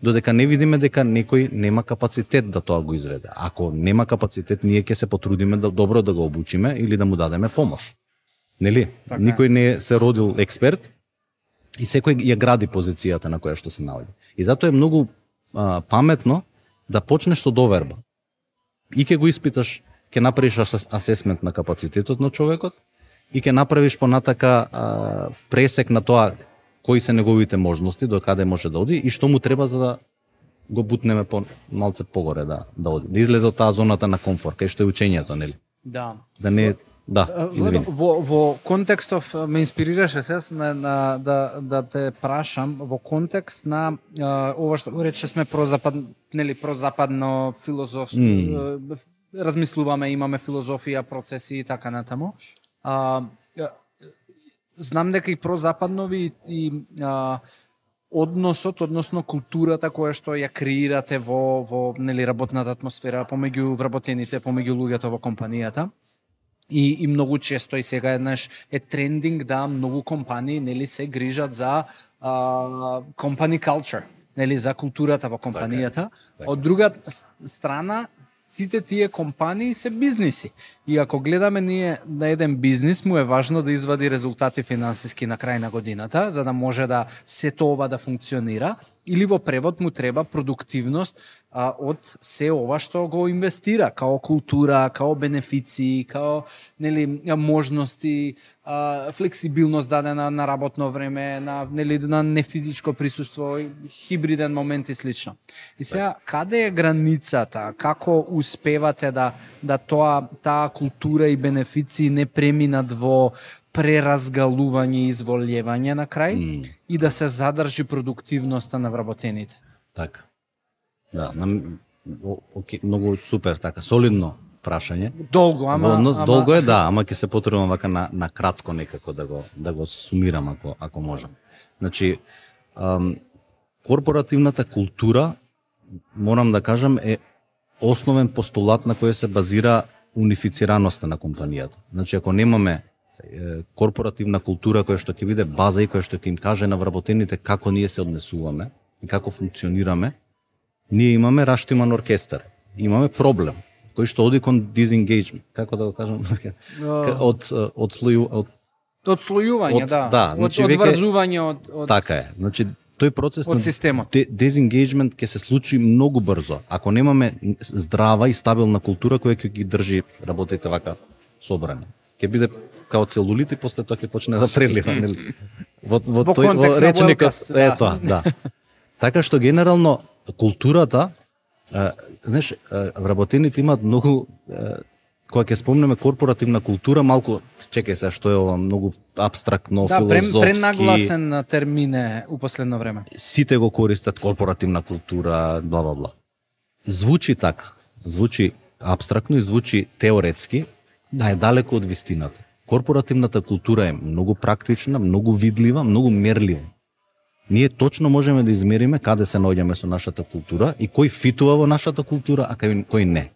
додека не видиме дека некој нема капацитет да тоа го изведе. Ако нема капацитет, ние ќе се потрудиме да добро да го обучиме или да му дадеме помош. Нели? Така. Никој не се родил експерт и секој ја гради позицијата на која што се наоѓа. И затоа е многу паметно да почнеш со доверба. И ќе го испиташ, ќе направиш асесмент на капацитетот на човекот и ќе направиш понатака пресек на тоа кои се неговите можности, до каде може да оди и што му треба за да го бутнеме малце погоре да оди. Да излезе од таа зоната на комфорт, кај што е учењето, нели? Да. Да не извини. Во контекстов ме инспирираше се да те прашам во контекст на ова што рече сме прозападно филозофски размислуваме, имаме филозофија, процеси и така натаму. Знам дека и прозападнови и односот, односно културата која што ја креирате во нели работната атмосфера помеѓу вработените, помеѓу луѓето во компанијата. И многу често и сега еднаш е трендинг да многу компании нели се грижат за company culture, нели за културата во компанијата. Од друга страна сите тие компании се бизниси. И ако гледаме ние на еден бизнис, му е важно да извади резултати финансиски на крај на годината, за да може да сето ова да функционира, или во превод му треба продуктивност од се ова што го инвестира, као култура, као бенефиции, као нели можности, флексибилност дадена на работно време, на нефизичко присуство, хибриден момент и слично. И сега каде е границата? Како успевате да таа култура и бенефиции не преминат во преразгалување и изволјевање на крај и да се задржи продуктивноста на вработените? Така. Да, многу супер, така, солидно прашање. Долго, долго е, да, ама ќе се потребам вака на кратко некако да го сумирам ако можам. Значи, корпоративната култура, морам да кажам, е основен постулат на кој се базира унифицираноста на компанијата. Значи, ако немаме корпоративна култура која што ќе биде база и која што ќе им каже на вработените како ние се однесуваме и како функционираме, ние имаме раштиман оркестар. Имаме проблем кој што оди кон disengagement, како да го кажам, одслојување, да, значи одврзување од така е. Значи тој процес од системот. Disengagement ќе се случи многу брзо ако немаме здрава и стабилна култура која ќе ги држи работите вака собрани. Ќе биде као целулит и после тоа ќе почне да прелива, нели? Во тој речникот е тоа, да. Така што генерално културата, знаеш, вработените имаат многу, кога ќе спомнеме корпоративна култура, малку, чекај се, што е ова многу абстрактно, филозофски. Да, пренагласен термин е у последно време. Сите го користат корпоративна култура, бла бла бла. Звучи така, звучи абстрактно и звучи теоретски, да е далеко од вистината. Корпоративната култура е многу практична, многу видлива, многу мерлива. Ние точно можеме да измериме каде се наоѓаме со нашата култура и кој фитува во нашата култура, а кој не.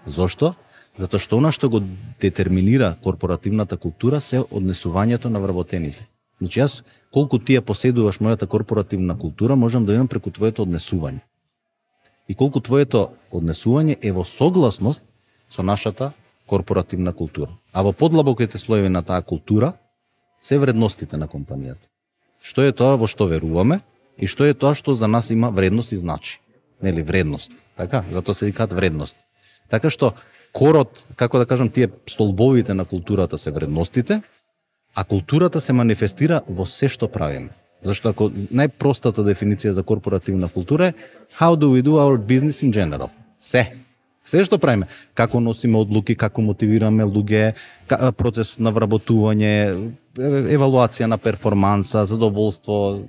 Зошто? Затоа што она што го детерминира корпоративната култура се однесувањето на вработените. Значи јас, колку ти ја поседуваш мојата корпоративна култура, можам да имам преку твоето однесување. И колку твоето однесување е во согласност со нашата корпоративна култура. А во подлабоките слоеви на таа култура се вредностите на компанијата. Што е тоа во што веруваме и што е тоа што за нас има вредност и значи. Нели, вредност. Така, затоа се викаат вредности. Така што корот, како да кажам, тие столбовите на културата се вредностите, а културата се манифестира во се што правиме. Зашто ако најпростата дефиниција за корпоративна култура е how do we do our business in general? Се што правиме, како носиме одлуки, како мотивираме луѓе, процесот на вработување, евалуација на перформанса, задоволство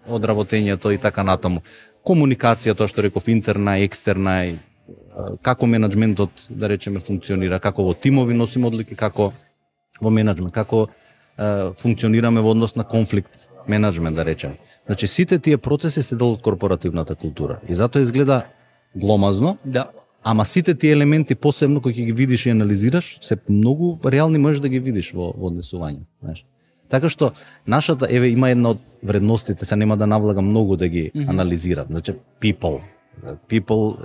од работењето и така натаму. Комуникација, тоа што реков, интерна, екстерна, како менаџментот, да речеме, функционира, како во тимови носиме одлуки, како во менаџмент, како функционираме во однос на конфликт менаџмент, да речеме. Значи, сите тие процеси се дел од корпоративната култура. И затоа изгледа гломазно, да. Ама сите тие елементи, посебно кои ги видиш и анализираш, се многу реални можеш да ги видиш во однесување. Знаеш. Така што, нашата, има една од вредностите, се нема да навлагам многу да ги анализирам. Значи, people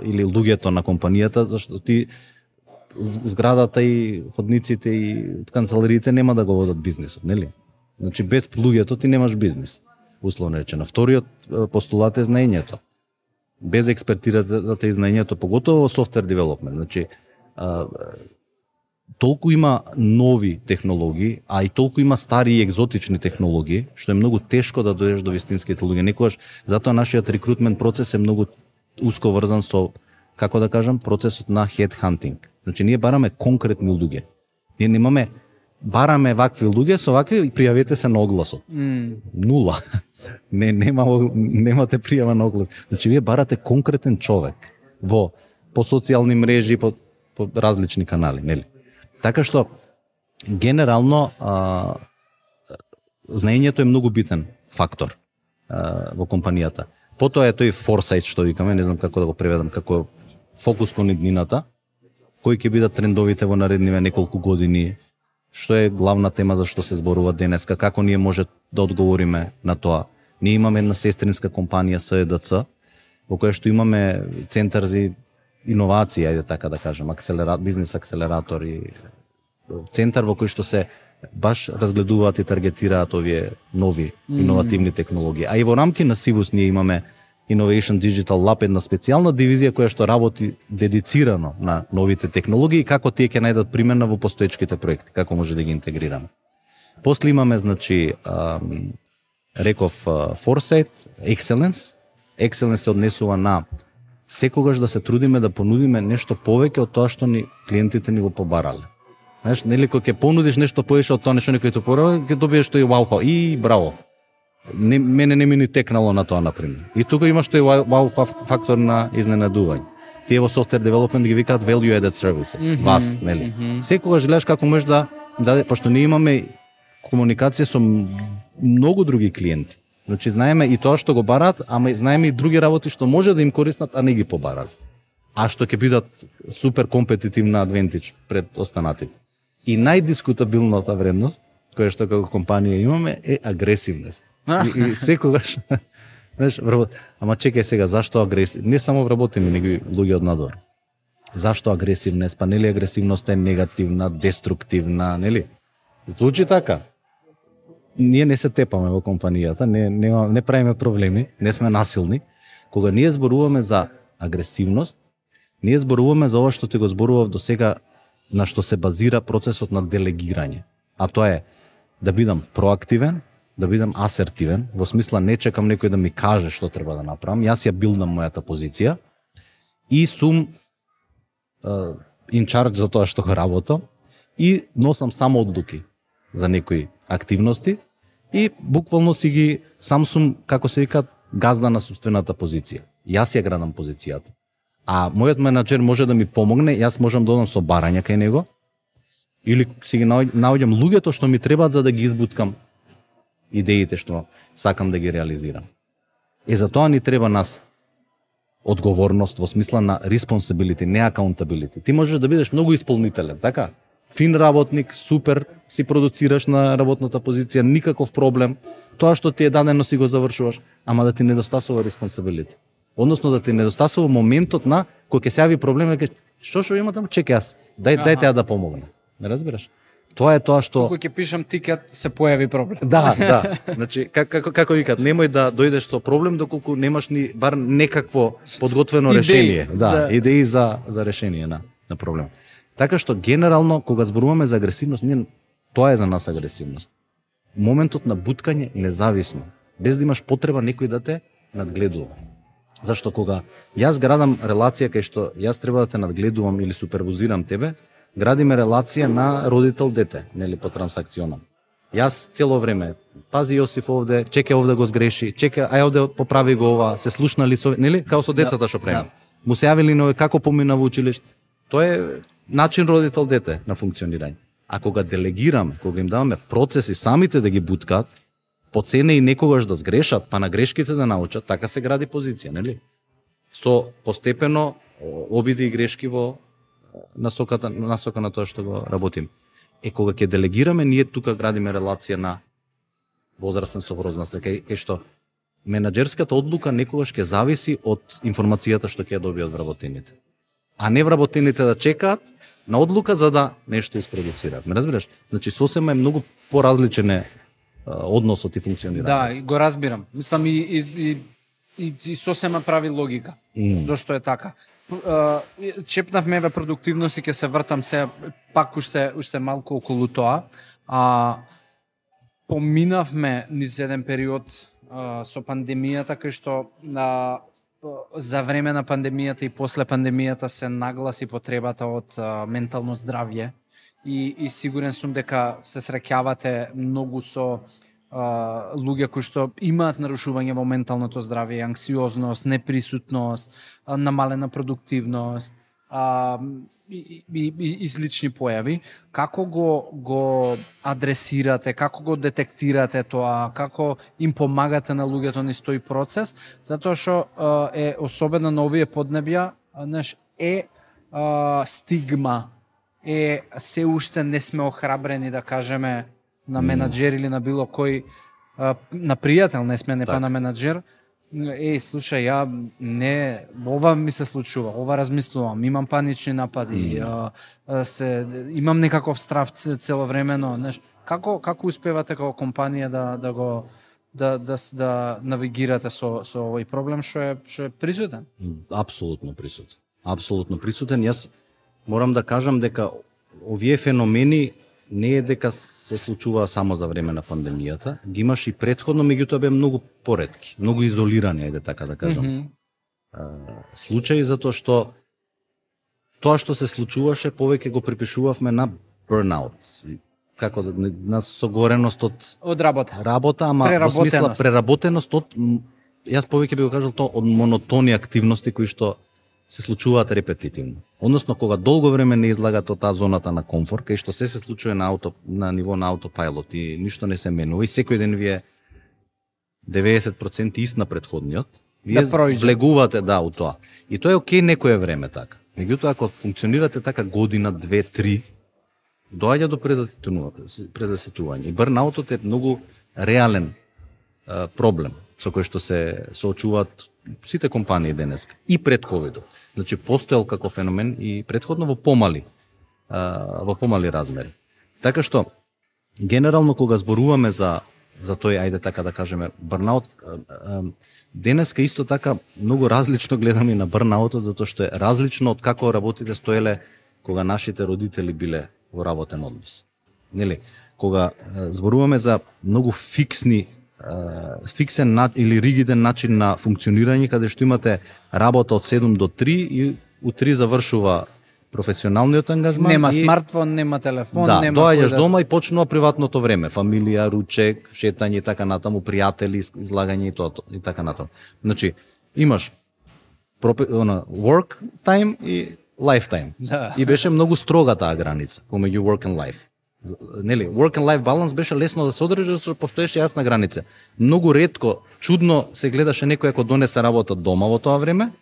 или луѓето на компанијата, зашто ти зградата и ходниците и канцелариите нема да го водат бизнисот, нели? Значи, без луѓето ти немаш бизнис, условно речено. Вториот постулат е знаењето. Без експертирате за те знаењето, поготово во софтвер девелопмент. Значи, толку има нови технологии, а и толку има стари и екзотични технологии, што е многу тешко да дојдеш до вистинските луѓе. Некогаш затоа нашиот рекрутмент процес е многу уско врзан со, како да кажам, процесот на headhunting. Значи ние бараме конкретни луѓе. Ние немаме бараме вакви луѓе со вакви и пријавете се на огласот. Нула. Немате пријава на оглас. Значи вие барате конкретен човек по социјални мрежи, по различни канали, нели? Така што генерално знаењето е многу битен фактор во компанијата. Потоа е тој foresight што викаме, не знам како да го преведам, како фокус кон иднината, кои ќе бидат трендовите во наредниве неколку години, што е главна тема за што се зборува денеска, како ние може да одговориме на тоа. Ние имаме една сестринска компанија СЕДЦ, во која што имаме центар за иновација, ајде така да кажем, бизнес акселератор и центар во кој што се баш разгледуваат и таргетираат овие нови иновативни технологии. А и во рамки на Сивус ние имаме Innovation Digital Lab, една специјална дивизија која што работи дедицирано на новите технологии и како тие ќе најдат примена во постоечките проекти, како може да ги интегрираме. После имаме, значи, реков Foresight, Excellence. Excellence се однесува на секогаш да се трудиме да понудиме нешто повеќе од тоа што ни клиентите ни го побарале. Знаеш, нели кога ќе понудиш нешто повеќе од тоа нешто некој ти побарале, ќе добиеш тој вау и браво. Мене не ми ни текнало на тоа, например. И тука имаш тој вау фактор на изненадување. Тие во software development ги викаат value added services. Вас, нели? Секогаш гледаш како можеш да пошто ние имаме комуникација со многу други клиенти. Значи знаеме и тоа што го бараат, ама знаеме и други работи што може да им користат, а не ги побарали. А што ќе бидат супер компетитивна адвентидж пред останатите. И најдискутабилната вредност која што како компанија имаме е агресивност. И секогаш, знаеш, ама чекај сега, зашто агресивност? Не само вработени, него и луѓе од надвор. Зашто агресивност? Па нели агресивноста е негативна, деструктивна, нели? Звучи така. Ние не се тепаме во компанијата, не правиме проблеми, не сме насилни. Кога ние зборуваме за агресивност, ние зборуваме за ова што ти го зборував до сега, на што се базира процесот на делегирање. А тоа е да бидам проактивен, да бидам асертивен, во смисла не чекам некој да ми каже што треба да направам, јас ја билдам мојата позиција и сум in charge за тоа што го работам и носам само одлуки за некои активности и буквално си ги сам сум, како се вика, газда на собствената позиција. Јас ја градам позицијата. А мојот менаџер може да ми помогне, јас можам да одам со барања кај него или си ги наоѓам луѓето што ми требаат за да ги избуткам идеите што сакам да ги реализирам. И за тоа ни треба нас одговорност во смисла на responsibility, не accountability. Ти можеш да бидеш многу исполнителен, така? Фин работник, супер, си продуцираш на работната позиција, никаков проблем. Тоа што ти е дадено си го завршуваш, ама да ти недостасува responsibility. Односно да ти недостасува моментот на кој ќе се јави проблем, да кажеш, што има таму, чекај јас, дај ја да помогне. Не разбираш? Тоа е тоа што кога ќе пишам тикет се појави проблем. Да. Значи како викат, немој да дојдеш со проблем доколку немаш ни бар некакво подготвено решение, идеи за решение на проблем. Така што генерално кога зборуваме за агресивност, тоа е за нас агресивност. Моментот на буткање независно, без да имаш потреба некој да те надгледува. Зашто кога јас градам релација кај што јас треба да те надгледувам или супервизирам тебе, градиме релација на родител-дете, нели, по трансакционално. Јас цело време, пази Јосиф овде, чекај овде го сгреши, чекај, ај овде поправи го ова, се слушнали со, нели, као со децата што правиме. Му се јавили нови како помина во училиште. Тоа е начин родител-дете на функционирање. А кога делегираме, кога им даваме процеси самите да ги буткаат, по цене и некогаш да сгрешат, па на грешките да научат, така се гради позиција, нели? Со постепено обиди и грешки во насока на тоа што го работим. Кога ќе делегираме, ние тука градиме релација на возрастен со возраст, кај што менаџерската одлука некогаш ќе зависи од информацијата што ќе ја добијат вработените. А не вработените да чекаат на одлука за да нешто isproducираат. Ме разбираш? Значи сосема е многу поразличен односот и функционирање. Да, го разбирам. Мислам и сосема прави логика. Зошто е така? чепнавме ве продуктивност и ќе се вртам се пак уште малку околу тоа. Поминавме низ еден период со пандемијата, кај што за време на пандемијата и после пандемијата се нагласи потребата од ментално здравје и сигурен сум дека се среќавате многу со луѓе кои што имаат нарушување во менталното здравје, анксиозност, неприсутност, намалена продуктивност и слични појави. Како го адресирате, како го детектирате тоа, како им помагате на луѓето низ тој процес, затоа што е особено на овие поднебја, стигма, се уште не сме охрабрени да кажеме на менаџер или на било кој, на пријател не сме, не па на менаџер, слушај, ова ми се случува, ова размислувам, имам панични напади, имам некаков страв целовремено, како успевате како компанија да навигирате со овој проблем што е присутен? Апсолутно присутен. Апсолутно присутен. Јас морам да кажам дека овие феномени не е дека се случува само за време на пандемијата, ги имаш и претходно, меѓутоа беа многу поретки, многу изолирани, ајде така да кажам. Случаи, затоа што тоа што се случуваше повеќе го припишувавме на burnout, како на согореност од работа, ама во смисла преработеност од, јас повеќе би го кажал тоа, од монотони активности кои што се случуваат репетитивно. Односно, кога долго време не излагате од таа зоната на комфорт, кај што се случува на ниво на аутопилот и ништо не се менува и секој ден ви е 90% ист на претходниот, вие влегувате у тоа. И тоа е окей некое време така. Меѓутоа, ако функционирате така година, 2, 3, доаѓа до презаситување. И бърнаутот е многу реален проблем со кој што се соочуваат сите компании денес и пред ковидот. Значи постоел како феномен и претходно во помали размери. Така што генерално кога зборуваме за тој, ајде така да кажеме, бърнаут, денеска исто така многу различно гледаме на бърнаутот, затоа што е различно од како работите стоеле кога нашите родители биле во работен однос. Нели, кога зборуваме за многу фиксен или ригиден начин на функционирање, каде што имате работа од 7 до 3 и у 3 завршува професионалниот ангажман. Нема смартфон, нема телефон, нема доаѓаш дома и почнува приватното време, фамилија, ручек, шетање и така натаму, пријатели, излагање и тоа и така натаму. Значи, имаш work time и life time. И беше многу строга таа граница помеѓу work and life. Нели, work and life balance беше лесно да се одржи, зашто постоеше јасна граница. Многу ретко, чудно се гледаше некој ако донесе работа дома во тоа време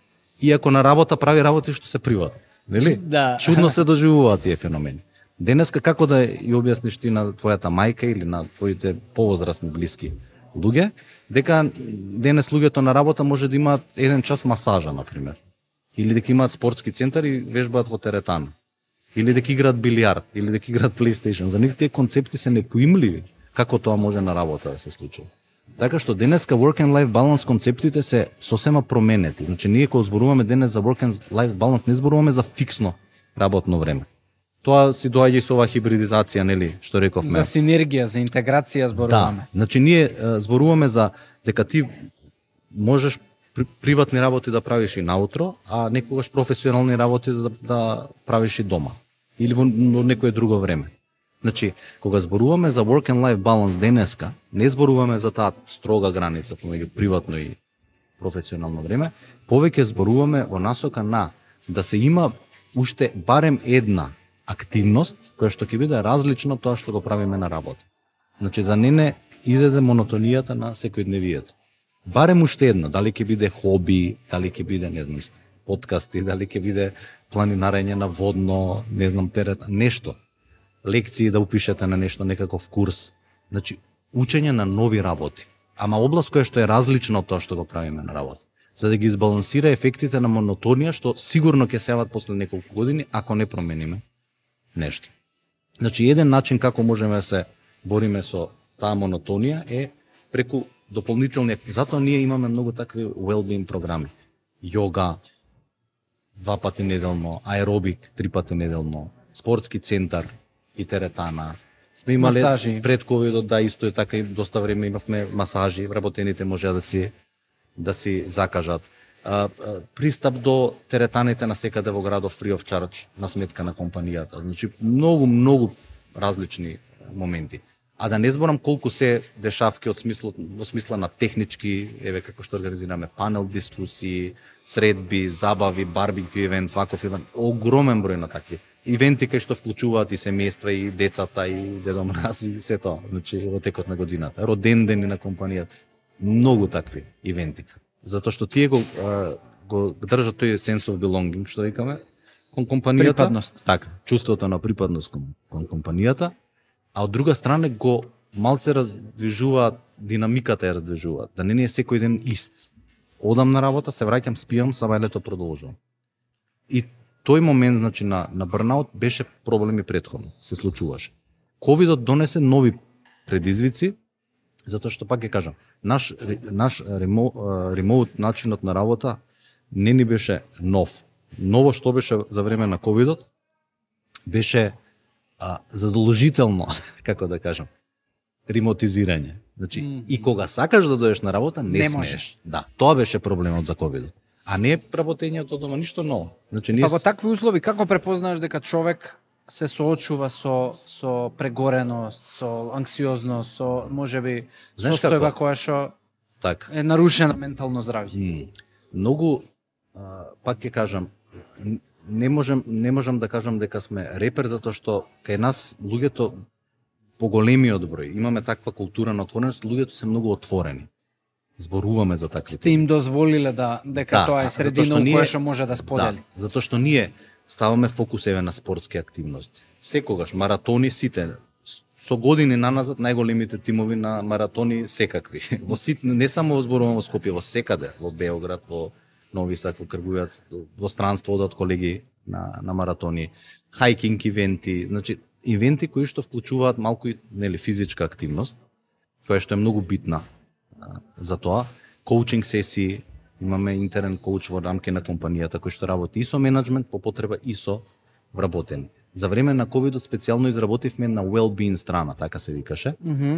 и ако на работа прави работи што се приватни. Нели? Да. Чудно се доживуваат тие феномени. Денеска како да ја објасниш ти на твојата мајка или на твоите повозрасни блиски луѓе, дека денес луѓето на работа може да имаат 1 час масажа, например. Или дека имаат спортски центар и вежбаат во теретана. Или дека играат билијард, или дека играат PlayStation. За нив тие концепти се непоимливи како тоа може на работа да се случува. Така што денеска work and life balance концептите се сосема променети. Значи ние кога зборуваме денес за work and life balance не зборуваме за фиксно работно време. Тоа си доаѓа и со оваа хибридизација, нели, што рековме. За синергија, за интеграција зборуваме. Да. Значи ние зборуваме за дека ти можеш приватни работи да правиш и наутро, а некогаш професионални работи да правиш и дома или во некое друго време. Значи, кога зборуваме за work and life balance денеска, не зборуваме за таа строга граница помеѓу приватно и професионално време, повеќе зборуваме во насока на да се има уште барем една активност која што ќе биде различна од тоа што го правиме на работа. Значи да не изеде монотонијата на секојдневието. Барем уште една, дали ќе биде хоби, дали ќе биде, не знам, подкасти, дали ќе биде планинарење на водно, не знам, терет, нешто. Лекции да упишете на нешто, некаков курс. Значи, учење на нови работи. Ама област која што е различна од тоа што го правиме на работа. За да ги избалансира ефектите на монотонија, што сигурно ќе се јават после неколку години, ако не промениме нешто. Значи, еден начин како можеме да се бориме со таа монотонија е преку дополнителни. Затоа ние имаме многу такви well-being програми. Йога, 2 пати неделно, аеробик 3 пати неделно, спортски центар и теретана. Сме имале масажи. Пред ковидот, да, исто е така, и доста време имавме масажи, вработените можеа да си закажат. Пристап до теретаните на секаде во градот free of charge на сметка на компанијата. Значи многу различни моменти. А да не зборам колку се дешавки во смисла на технички, еве како што организираме панел дискусии, средби, забави, барбекю евент, ваков евент, огромен број на такви ивенти кај што вклучуваат и семејства, и децата, и Дедо Мраз, и се тоа, значи во текот на годината, роден дени на компанијата, многу такви ивенти. Затоа што тие го држат тој sense of belonging, што викаме, кон компанијата. Припадност. Така, чувството на припадност кон компанијата, а од друга страна го малце раздвижуваат, динамиката ја раздвижуваат, да не е секој ден ист. Одам на работа, се враќам, спијам, сабајлето продолжувам. И тој момент, значи, на бърнаут беше проблеми претходно, се случуваше. Ковидот донесе нови предизвици, затоа што пак ќе кажам, наш ремоут начинот на работа не ни беше нов. Ново што беше за време на ковидот беше задолжително, како да кажам, ремотизирање. Значи, и кога сакаш да дојдеш на работа, не смееш. Да, тоа беше проблемот за ковидот. А не работењето дома, ништо ново. Значи, Па во такви услови, како препознаеш дека човек се соочува со прегореност, со анксиозност, со можеби состојба која што е нарушена ментално здравје? Многу, пак ќе кажам, не можам да кажам дека сме репер, затоа што кај нас луѓето поголемиот број, имаме таква култура на отвореност, луѓето се многу отворени. Зборуваме за такви. Сте им дозволиле дека тоа е средина во која што може да сподели. Да, затоа што ние ставаме фокус еве на спортски активности. Секогаш маратони сите со години наназад најголемите тимови на маратони секакви. Не само зборувам во Скопје, во секаде, во Београд, во Нови Сад, во Кргујац, во странство одат колеги на маратони, хајкинг ивенти, значи ивенти кои што вклучуваат малку и физичка активност, која што е многу битна за тоа. Коучинг сесии, имаме интерен коуч во рамки на компанијата кој што работи и со менеджмент, по потреба и со вработени. За време на ковидот специјално изработивме на well-being страна, така се викаше,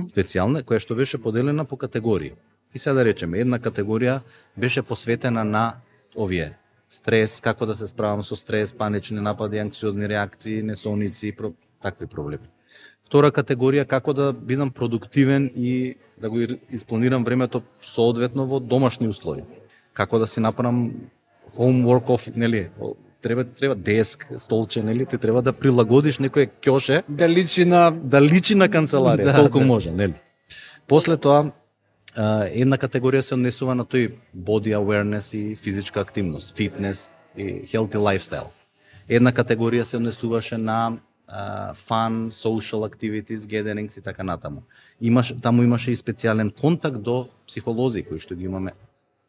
специјална, која што беше поделена по категории. И сега да речеме, една категорија беше посветена на овие стрес, како да се справам со стрес, панични напади, анксиозни реакции, несоници, такви проблеми. Втора категорија, како да бидам продуктивен и да го испланирам времето соодветно во домашни услови. Како да си направам home work off, нели, треба деск, столче, нели, ти треба да прилагодиш некое ќоше да личи на канцеларија, колку може, нели. После тоа една категорија се однесува на тој body awareness и физичка активност, фитнес и healthy lifestyle. Една категорија се однесуваше на fun, social activities, gatherings и така натаму. Таму имаше и специјален контакт до психолози кои што ги имаме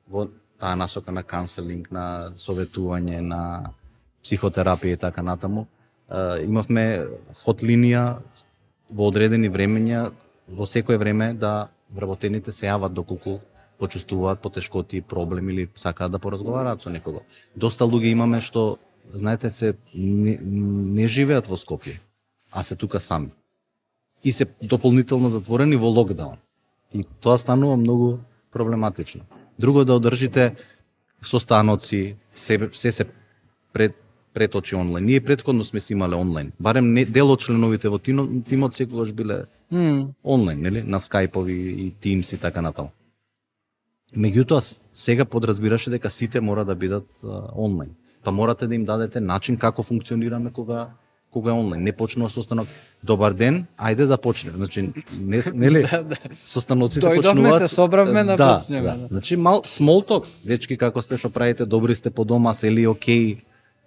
во таа насока на канцелинг, на советување, на психотерапија и така натаму. Имавме хот линија во одредени времења, во секое време да вработените се јават доколку почувствуваат потешкоти, проблеми или сакаат да поразговараат со некого. Доста луѓе имаме што, знаете, се не живеат во Скопје, а се тука сами. И се дополнително затворени во локдаун. И тоа станува многу проблематично. Друго да одржите состаноци, се пред очи онлайн. Ние претходно сме си имале онлайн. Барем дел од членовите во тимот секогаш биле онлайн, нели? На скајпови и Teams и така натаму. Меѓутоа, сега подразбираше дека сите мора да бидат онлайн. Па морате да им дадете начин како функционираме кога е онлайн. Не почнува состанок. Добар ден, ајде да почнеме. Значи, нели? Состаноците почнуваат. Дојдовме, се собравме да почнеме. Значи, small talk. Дечки, како сте, што правите, добри сте по дома, се ли окей,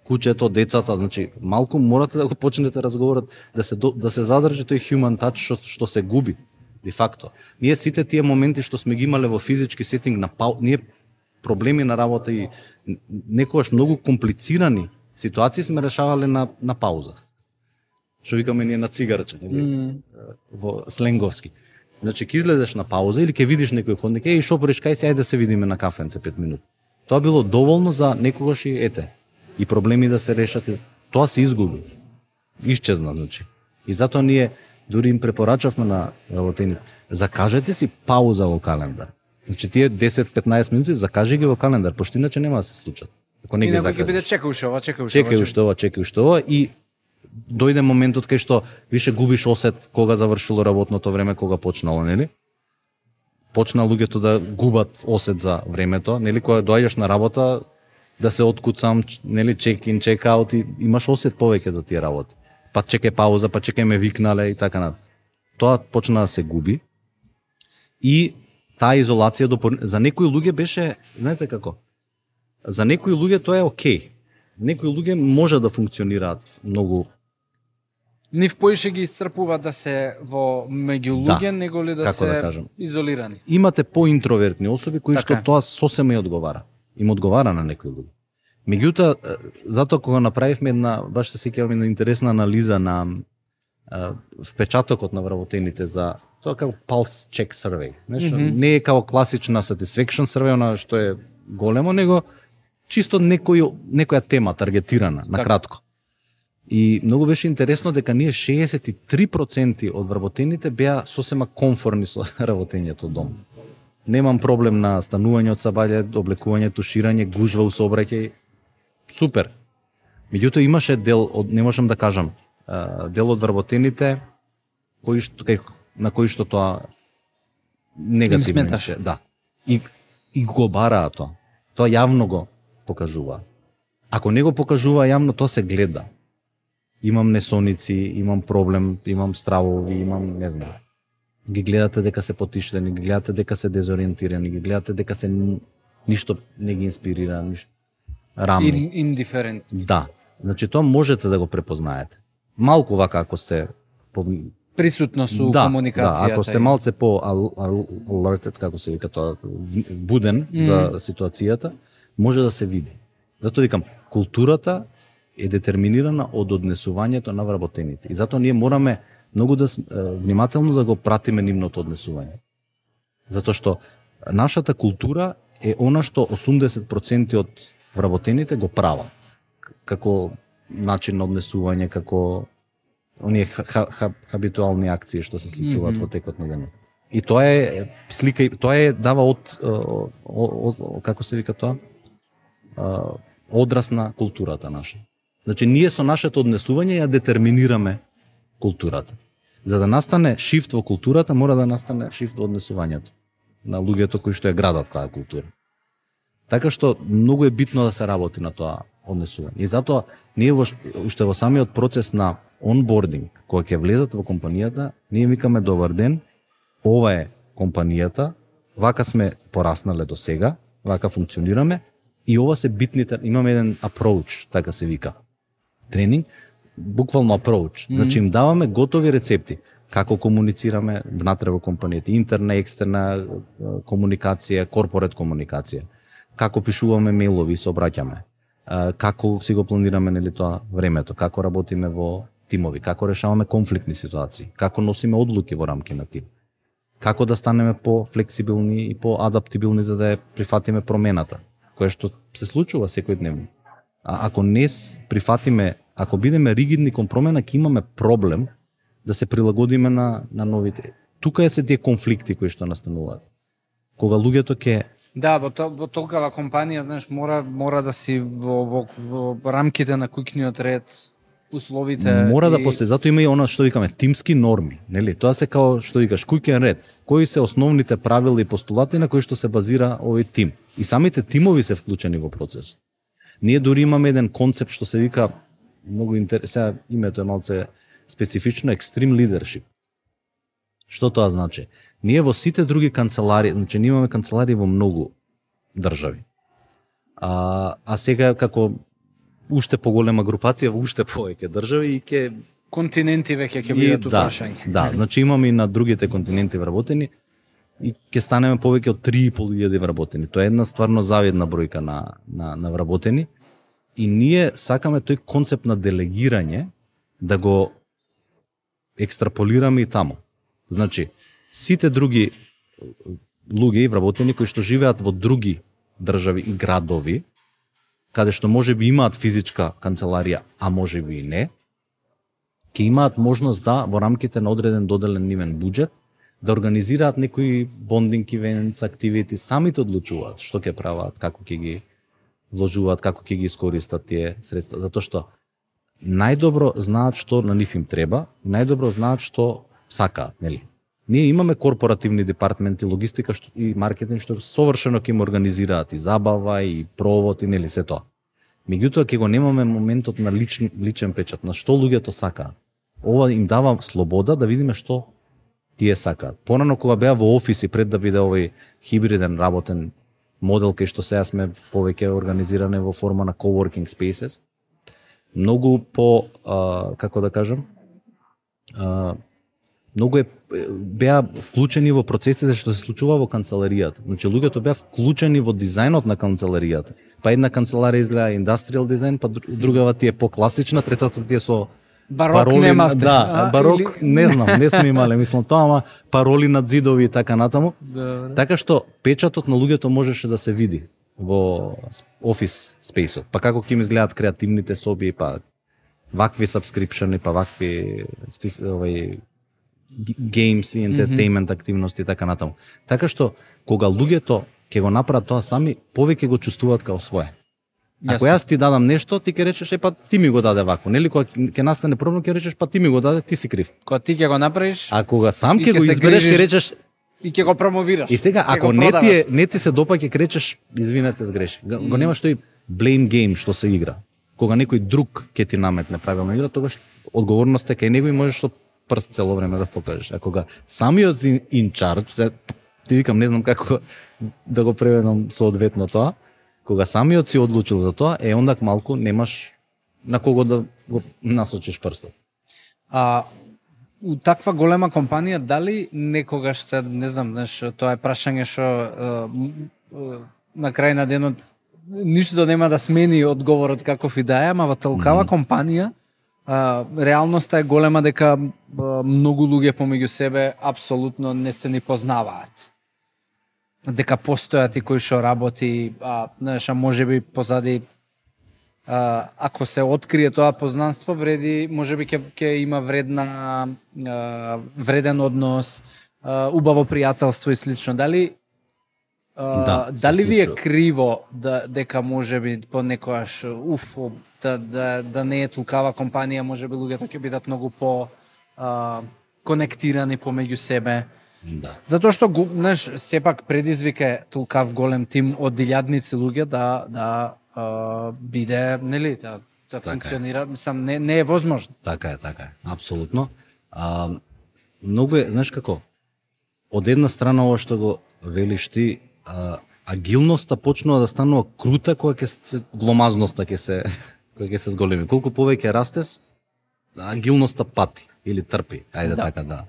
куќето, децата, значи малку морате да го почнете разговорот, да се задржи тој human touch што се губи де факто. Ние сите тие моменти што сме ги имале во физички сетинг ние проблеми на работа и некогаш многу комплицирани ситуации сме решавале на пауза. Што викаме ние на цигарче, во сленговски. Значи ќе излезеш на пауза или ќе видиш некој ходник, шо пориш, кај се, ајде да се видиме на кафенце 5 минути. Тоа било доволно за некогаш и и проблеми да се решат, тоа се изгуби. Исчезна, значи. И затоа ние дури им препорачавме на работените, закажете си пауза во календар. Значи тие 10-15 минути закажи ги во календар, пошто иначе нема да се случат. Ако не ги закажеш. И некој ќе биде чекај уште ова и дојде моментот кај што више губиш осет кога завршило работното време, кога почнало, нели? Почна луѓето да губат осет за времето, нели, кога доаѓаш на работа да се откуцам, нели, чек-ин, чек-аут и имаш осет повеќе за тие работи. Па чекај пауза, па чекај ме викнале и така на. Тоа почна да се губи. И таа изолација за некои луѓе беше, знаете како? За некои луѓе тоа е окей. Некои луѓе може да функционираат многу. Нив поише ги исцрпува да се во меѓу луѓе, него ли да се изолирани. Имате поинтровертни особи кои што тоа сосема и одговара. Им одговара на некои луѓе. Меѓутоа, затоа кога направивме една, баш се сеќавам, една интересна анализа на впечатокот на вработените за тоа како pulse check survey. Не е како класична satisfaction survey, она што е големо, него чисто некоја тема таргетирана, на кратко. И многу беше интересно дека ние 63% од вработените беа сосема комфорни со работењето дом. Немам проблем на станување од сабајле, облекување, туширање, гужва у сообраќај. Супер. Меѓутоа имаше дел од, не можам да кажам, дел од вработените на кои што тоа негативно имаше. Да. И го бараа тоа. Тоа јавно го покажува. Ако не го покажува јавно, тоа се гледа. Имам несоници, имам проблем, имам стравови, имам, не знам. Ги гледате дека се потиштени, ги гледате дека се дезориентирани, ги гледате дека се ништо не ги инспирира, ништо рамни. Индиферент. Да. Значи тоа можете да го препознаете. Малку вака ако сте присутно со комуникацијата. Да, ако сте малце по alerted, како се вика тоа, буден за ситуацијата, може да се види. Затоа викам, културата е детерминирана од однесувањето на вработените. И затоа ние мораме многу да внимателно да го пратиме нивното однесување. Затоа што нашата култура е она што 80% од вработените го прават. Како начин на однесување, како оние хабитуални акции што се случуваат во текот на денот. И тоа е слика, тоа е дава од како се вика тоа? Одраз на културата наша. Значи, ние со нашето однесување ја детерминираме културата. За да настане шифт во културата, мора да настане шифт во однесувањето на луѓето кои што ја градат таа култура. Така што многу е битно да се работи на тоа однесување. И затоа ние уште во самиот процес на онбординг, кога ќе влезат во компанијата, ние викаме добар ден, ова е компанијата, вака сме пораснале до сега, вака функционираме и ова се битните, имаме еден approach, така се вика. Тренинг, буквално approach. Значи им даваме готови рецепти како комуницираме внатре во компанијата, интерна, екстерна комуникација, корпорет комуникација. Како пишуваме мејлови и се обраќаме. Како си го планираме, нели, тоа времето, како работиме во тимови, како решаваме конфликтни ситуации, како носиме одлуки во рамки на тим. Како да станеме по-флексибилни и по-адаптибилни за да ја прифатиме промената, кое што се случува секојдневно. А ако не прифатиме, ако бидеме ригидни кон промена, ќе имаме проблем да се прилагодиме на новите. Тука е се тие конфликти кои што настануваат. Кога луѓето ќе Да, во толкава компанија, знаеш, мора да си во рамките на куќниот ред, условите. Мора да постои, затоа има и она што викаме тимски норми, нели? Тоа се као што викаш куќен ред. Кои се основните правила и постулати на кои што се базира овој тим? И самите тимови се вклучени во процес. Ние дури имаме еден концепт што се вика многу интересно, името е малце специфично, extreme leadership. Што тоа значи? Ние во сите други канцелари, значи ние имаме канцелари во многу држави. А сега како уште поголема групација во уште повеќе држави и ќе континенти веќе ќе бидат упрашања. Да, значи имаме и на другите континенти вработени и ќе станеме повеќе од 3.500 вработени. Тоа е една стварно завидна бројка на вработени и ние сакаме тој концепт на делегирање да го екстраполираме и таму. Значи, сите други луѓе и вработени кои што живеат во други држави и градови, каде што можеби имаат физичка канцеларија, а можеби и не, ќе имаат можност да во рамките на одреден доделен нивен буџет да организираат некои bonding events, activities, самите одлучуваат што ќе прават, како ќе ги вложуваат, како ќе ги искористат тие средства, затоа што најдобро знаат што на нив им треба, најдобро знаат што сакаат, нели? Ние имаме корпоративни департаменти, логистика и маркетинг што совршено ќе им организираат и забава и провод и нели се тоа. Меѓутоа ќе го немаме моментот на личен печат, на што луѓето сакаат. Ова им дава слобода да видиме што тие сакаат. Порано кога беа во офиси пред да биде овој хибриден работен модел кај што сега сме повеќе организиране во форма на coworking spaces, многу по како да кажам, многу беа вклучени во процесите што се случува во канцеларијата. Значи луѓето беа вклучени во дизајнот на канцеларијата. Па една канцеларија изгледа индустријал дизајн, па другава ти е по-класична, третата ти е со барок пароли, немавте. Да, барок или... не знам, не сме имале, мислам тоа, ама пароли над зидови и така натаму. Добре. Така што печатот на луѓето можеше да се види во офис спейсот. Па како ќе им изгледаат креативните соби, па вакви сабскрипшени, па вакви games и entertainment активности и така натаму. Така што кога луѓето ќе го направат тоа сами, повеќе го чувствуваат као свое. Ако јас ти дадам нешто, ти ќе речеш па ти ми го даде вако, нели? Кога ќе настане проблем, ќе речеш па ти ми го даде, ти си крив. Кога ти ќе го направиш, а кога сам ќе го избереш, ќе речеш и ќе го промовираш. И сега ако не ти се допаѓа, ќе речеш извинете, сгреши. Го нема што и blame game што се игра. Кога некој друг ќе ти наметне правилна игра, тогаш одговорноста е кај него и можеш со прст цело време да покажеш. А кога самиот in charge, ти викам не знам како да го преведам соодветно тоа, кога самиот си одлучил за тоа, ондак малку немаш на кого да го насочиш прстот. У таква голема компанија, дали некогаш се, не знам, знаеш, тоа е прашање што на крај на денот ништо нема да смени одговорот каков и да е, ама во толкава компанија реалноста е голема дека многу луѓе помеѓу себе апсолутно не се ни познаваат. Дека постојат и кои што работи, знаеш, можеби позади ако се открие тоа познанство, вреди, можеби ќе има вреден однос, убаво пријателство и слично. Дали дали ви е криво дека можеби понекогаш да не е толкава компанија, можеби луѓето ќе бидат многу по конектирани помеѓу себе? Да. Затоа што, знаеш, сепак предизвика е толкав голем тим од илјадници луѓе да биде, нели, да функционира, мислам, не е возможно. Така е, апсолутно. Многу е, знаеш како, од една страна ова што го велиш ти, агилноста почнува да станува крута кога гломазноста ќе се зголеми. Колку повеќе растеш, агилноста пати или трпи, ајде така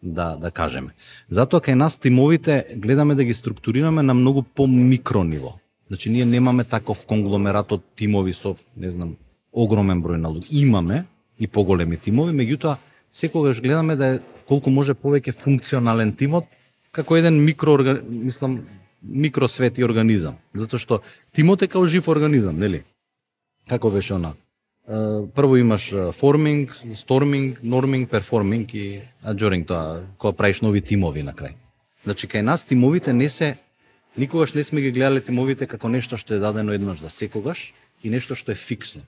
да кажеме. Затоа кај нас тимовите гледаме да ги структурираме на многу по-микро ниво. Значи ние немаме таков конгломерат од тимови со, не знам, огромен број на луѓе. Имаме и поголеми тимови, меѓутоа секогаш гледаме да е колку може повеќе функционален тимот како еден микросвет и организам. Затоа што тимот е као жив организам, нели? Како беше она? Прво имаш форминг, сторминг, норминг, перформинг и аджоринг, тоа кога правиш нови тимови на крај. Значи кај нас тимовите никогаш не сме ги гледале тимовите како нешто што е дадено еднаш за секогаш и нешто што е фиксно.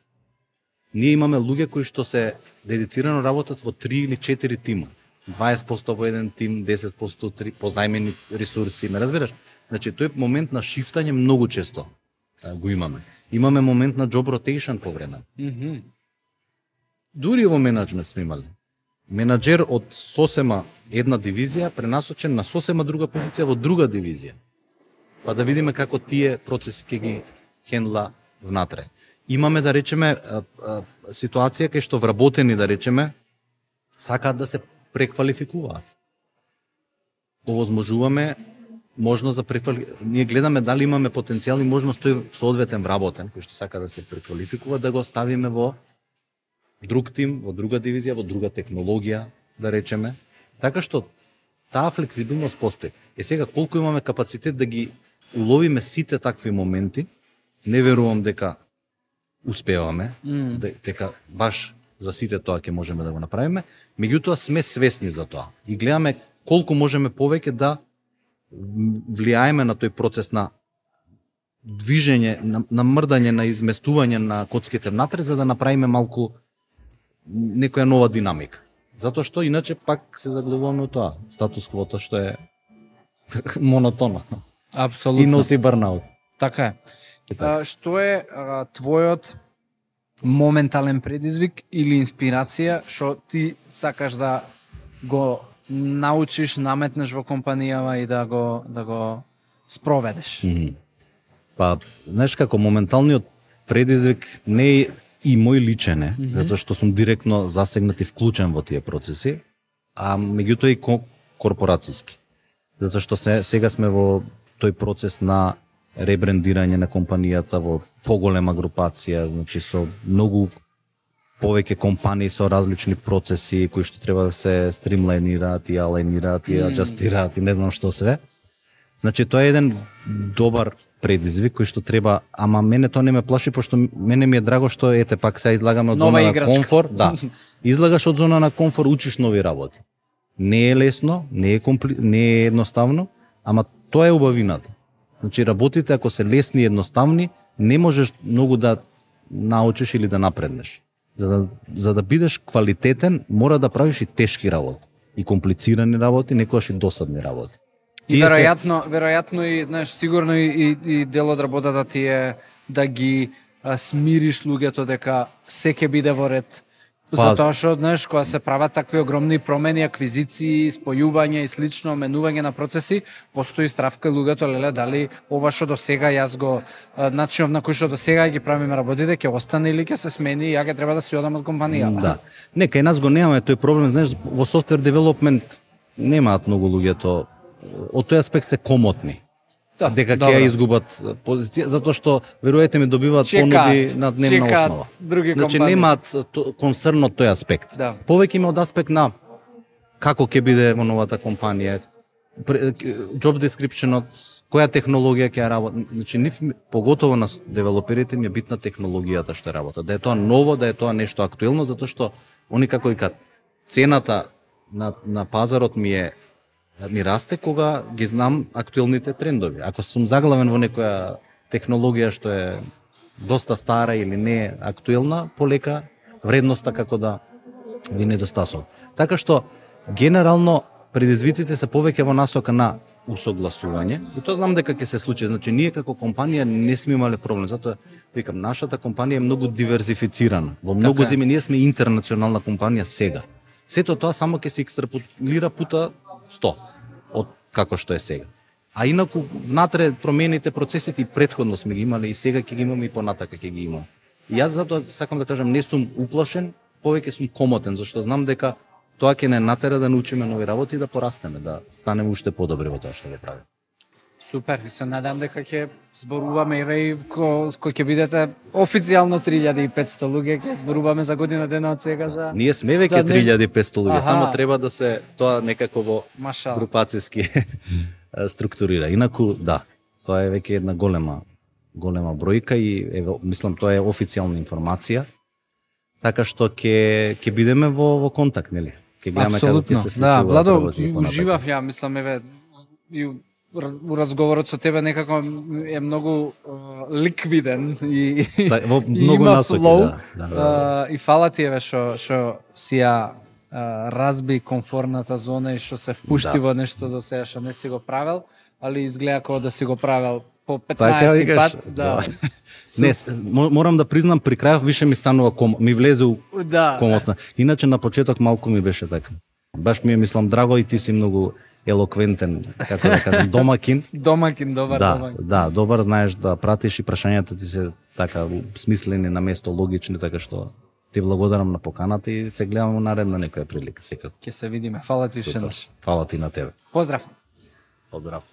Ние имаме луѓе кои што се дедицирано работат во 3 или 4 тима. 20% во еден тим, 10% три позајмени ресурси, ме разбираш? Значи тој момент на шифтање многу често го имаме. Имаме момент на job rotation по време. Дури во менаџмент сме имали. Менаџер од сосема една дивизија пренасочен на сосема друга позиција во друга дивизија. Па да видиме како тие процеси ќе ги хендла внатре. Имаме, да речеме, ситуација кај што вработени, да речеме, сакаат да се преквалификуваат. Овозможуваме можност за ние гледаме дали имаме потенцијал и можност тој соодветен вработен кој што сака да се преквалификува да го ставиме во друг тим, во друга дивизија, во друга технологија, да речеме. Така што таа флексибилност постои. Сега колку имаме капацитет да ги уловиме сите такви моменти, не верувам дека успеваме, дека баш за сите тоа ќе можеме да го направиме, меѓутоа сме свесни за тоа и гледаме колку можеме повеќе да влијаеме на тој процес на движење, на мрдање, на изместување на коцките внатре, за да направиме малку некоја нова динамика. Затоа што иначе пак се заглавуваме од тоа, статус квота што е монотонно. Апсолутно. И носи барнаут. Така е. Што е твојот моментален предизвик или инспирација што ти сакаш да го научиш, наметнеш во компанијава и да го спроведеш? Па, знаеш како, моменталниот предизвик не е и мој личен е, затоа што сум директно засегнат и вклучен во тие процеси, а меѓутоа и корпорацијски. Затоа што сега сме во тој процес на ребрендирање на компанијата во поголема групација, значи со многу повеќе компании со различни процеси кои што треба да се стримлајнираат и алајнираат и аџастираат и не знам што све. Значи тоа е еден добар предизвик кој што треба, ама мене тоа не ме плаши, пошто мене ми е драго што ете пак сега излагаме од зона на комфор, да. Излагаш од зона на комфор, учиш нови работи. Не е лесно, не е едноставно, ама тоа е убавината. Значи работите ако се лесни и едноставни, не можеш многу да научиш или да напреднеш. За да бидеш квалитетен, мора да правиш и тешки работи, и комплицирани работи, некогаш и досадни работи. И веројатно и знаеш, сигурно и дел од работата ти е да ги смириш луѓето дека се ќе биде во ред. Затоа што, знаеш, кога се прават такви огромни промени, аквизиции, спојување и слично, менување на процеси, постои страв кај луѓето, леле, дали ова што до сега јас го начинов на кој што до сега ги правиме работите, ќе остане или ќе се смени и ја ќе треба да си одам од компанијата. Да. Не, кај нас го немаме тој проблем, знаеш, во софтвер девелопмент немаат многу луѓето од тој аспект се комотни. Да, дека ќе ја изгубат позиција, затоа што веруете ми добиваат понуди на дневна основа. Значи немаат концерн од тој аспект. Да. Повеќе има од аспект на како ќе биде во новата компанија, job description-от, која технологија ќе работи. Значи нив поготово на девелоперите ми е битна технологијата што работат. Да е тоа ново, да е тоа нешто актуелно, затоа што они како викаат цената на пазарот ми расте кога ги знам актуелните трендови. Ако сум заглавен во некоја технологија што е доста стара или не е актуелна, полека вредноста како да ви недостасува. Така што генерално предизвиците се повеќе во насока на усогласување и тоа знам дека ќе се случи. Значи ние како компанија не сме имале проблем, затоа викам нашата компанија е многу диверзифицирана. Во многу земји ние сме интернационална компанија сега. Сето тоа само ќе се екстраполира пута 100 од како што е сега. А инаку внатре промените, процесите и претходно сме ги имале и сега ќе ги имаме и понатака ќе ги имаме. И јас затоа сакам да кажам не сум уплашен, повеќе сум комотен, зашто знам дека тоа ќе не натера да научиме нови работи и да порастеме, да станеме уште подобри во тоа што го правиме. Супер, и се надам дека ќе зборуваме и кој ќе бидете официјално 3500 луѓе, ќе зборуваме за година дена од сега за... Ние сме веќе 3500 луѓе, само треба да се тоа некако во групацијски структурира. Инаку, да, тоа е веќе една голема бројка и мислам тоа е официјална информација, така што ќе бидеме во контакт, нели? Ќе гледаме како ќе се случува. Да, Владо, уживав ја, мислам, и у разговорот со тебе некако е многу ликвиден и многу има насоки, флоу. да. И фала ти еве што си ја разби комфорната зона и што се впушти во нешто до сега што не си го правел, али изгледа како да си го правел по 15 пат. Да. Не, морам да признам, при крајов више ми станува ми влезе комотна. Иначе на почеток малку ми беше така. Баш ми е, мислам, драго и ти си многу елоквентен, како да кажам, домакин. Добар домакин. Да, добар, знаеш да пратиш и прашањата ти се така смислени на место, логични, така што ти благодарам на поканата и се гледаме во наредна некоја прилика секако. Ќе се видиме. Фала ти уште. Фала ти на тебе. Поздрав. Поздрав.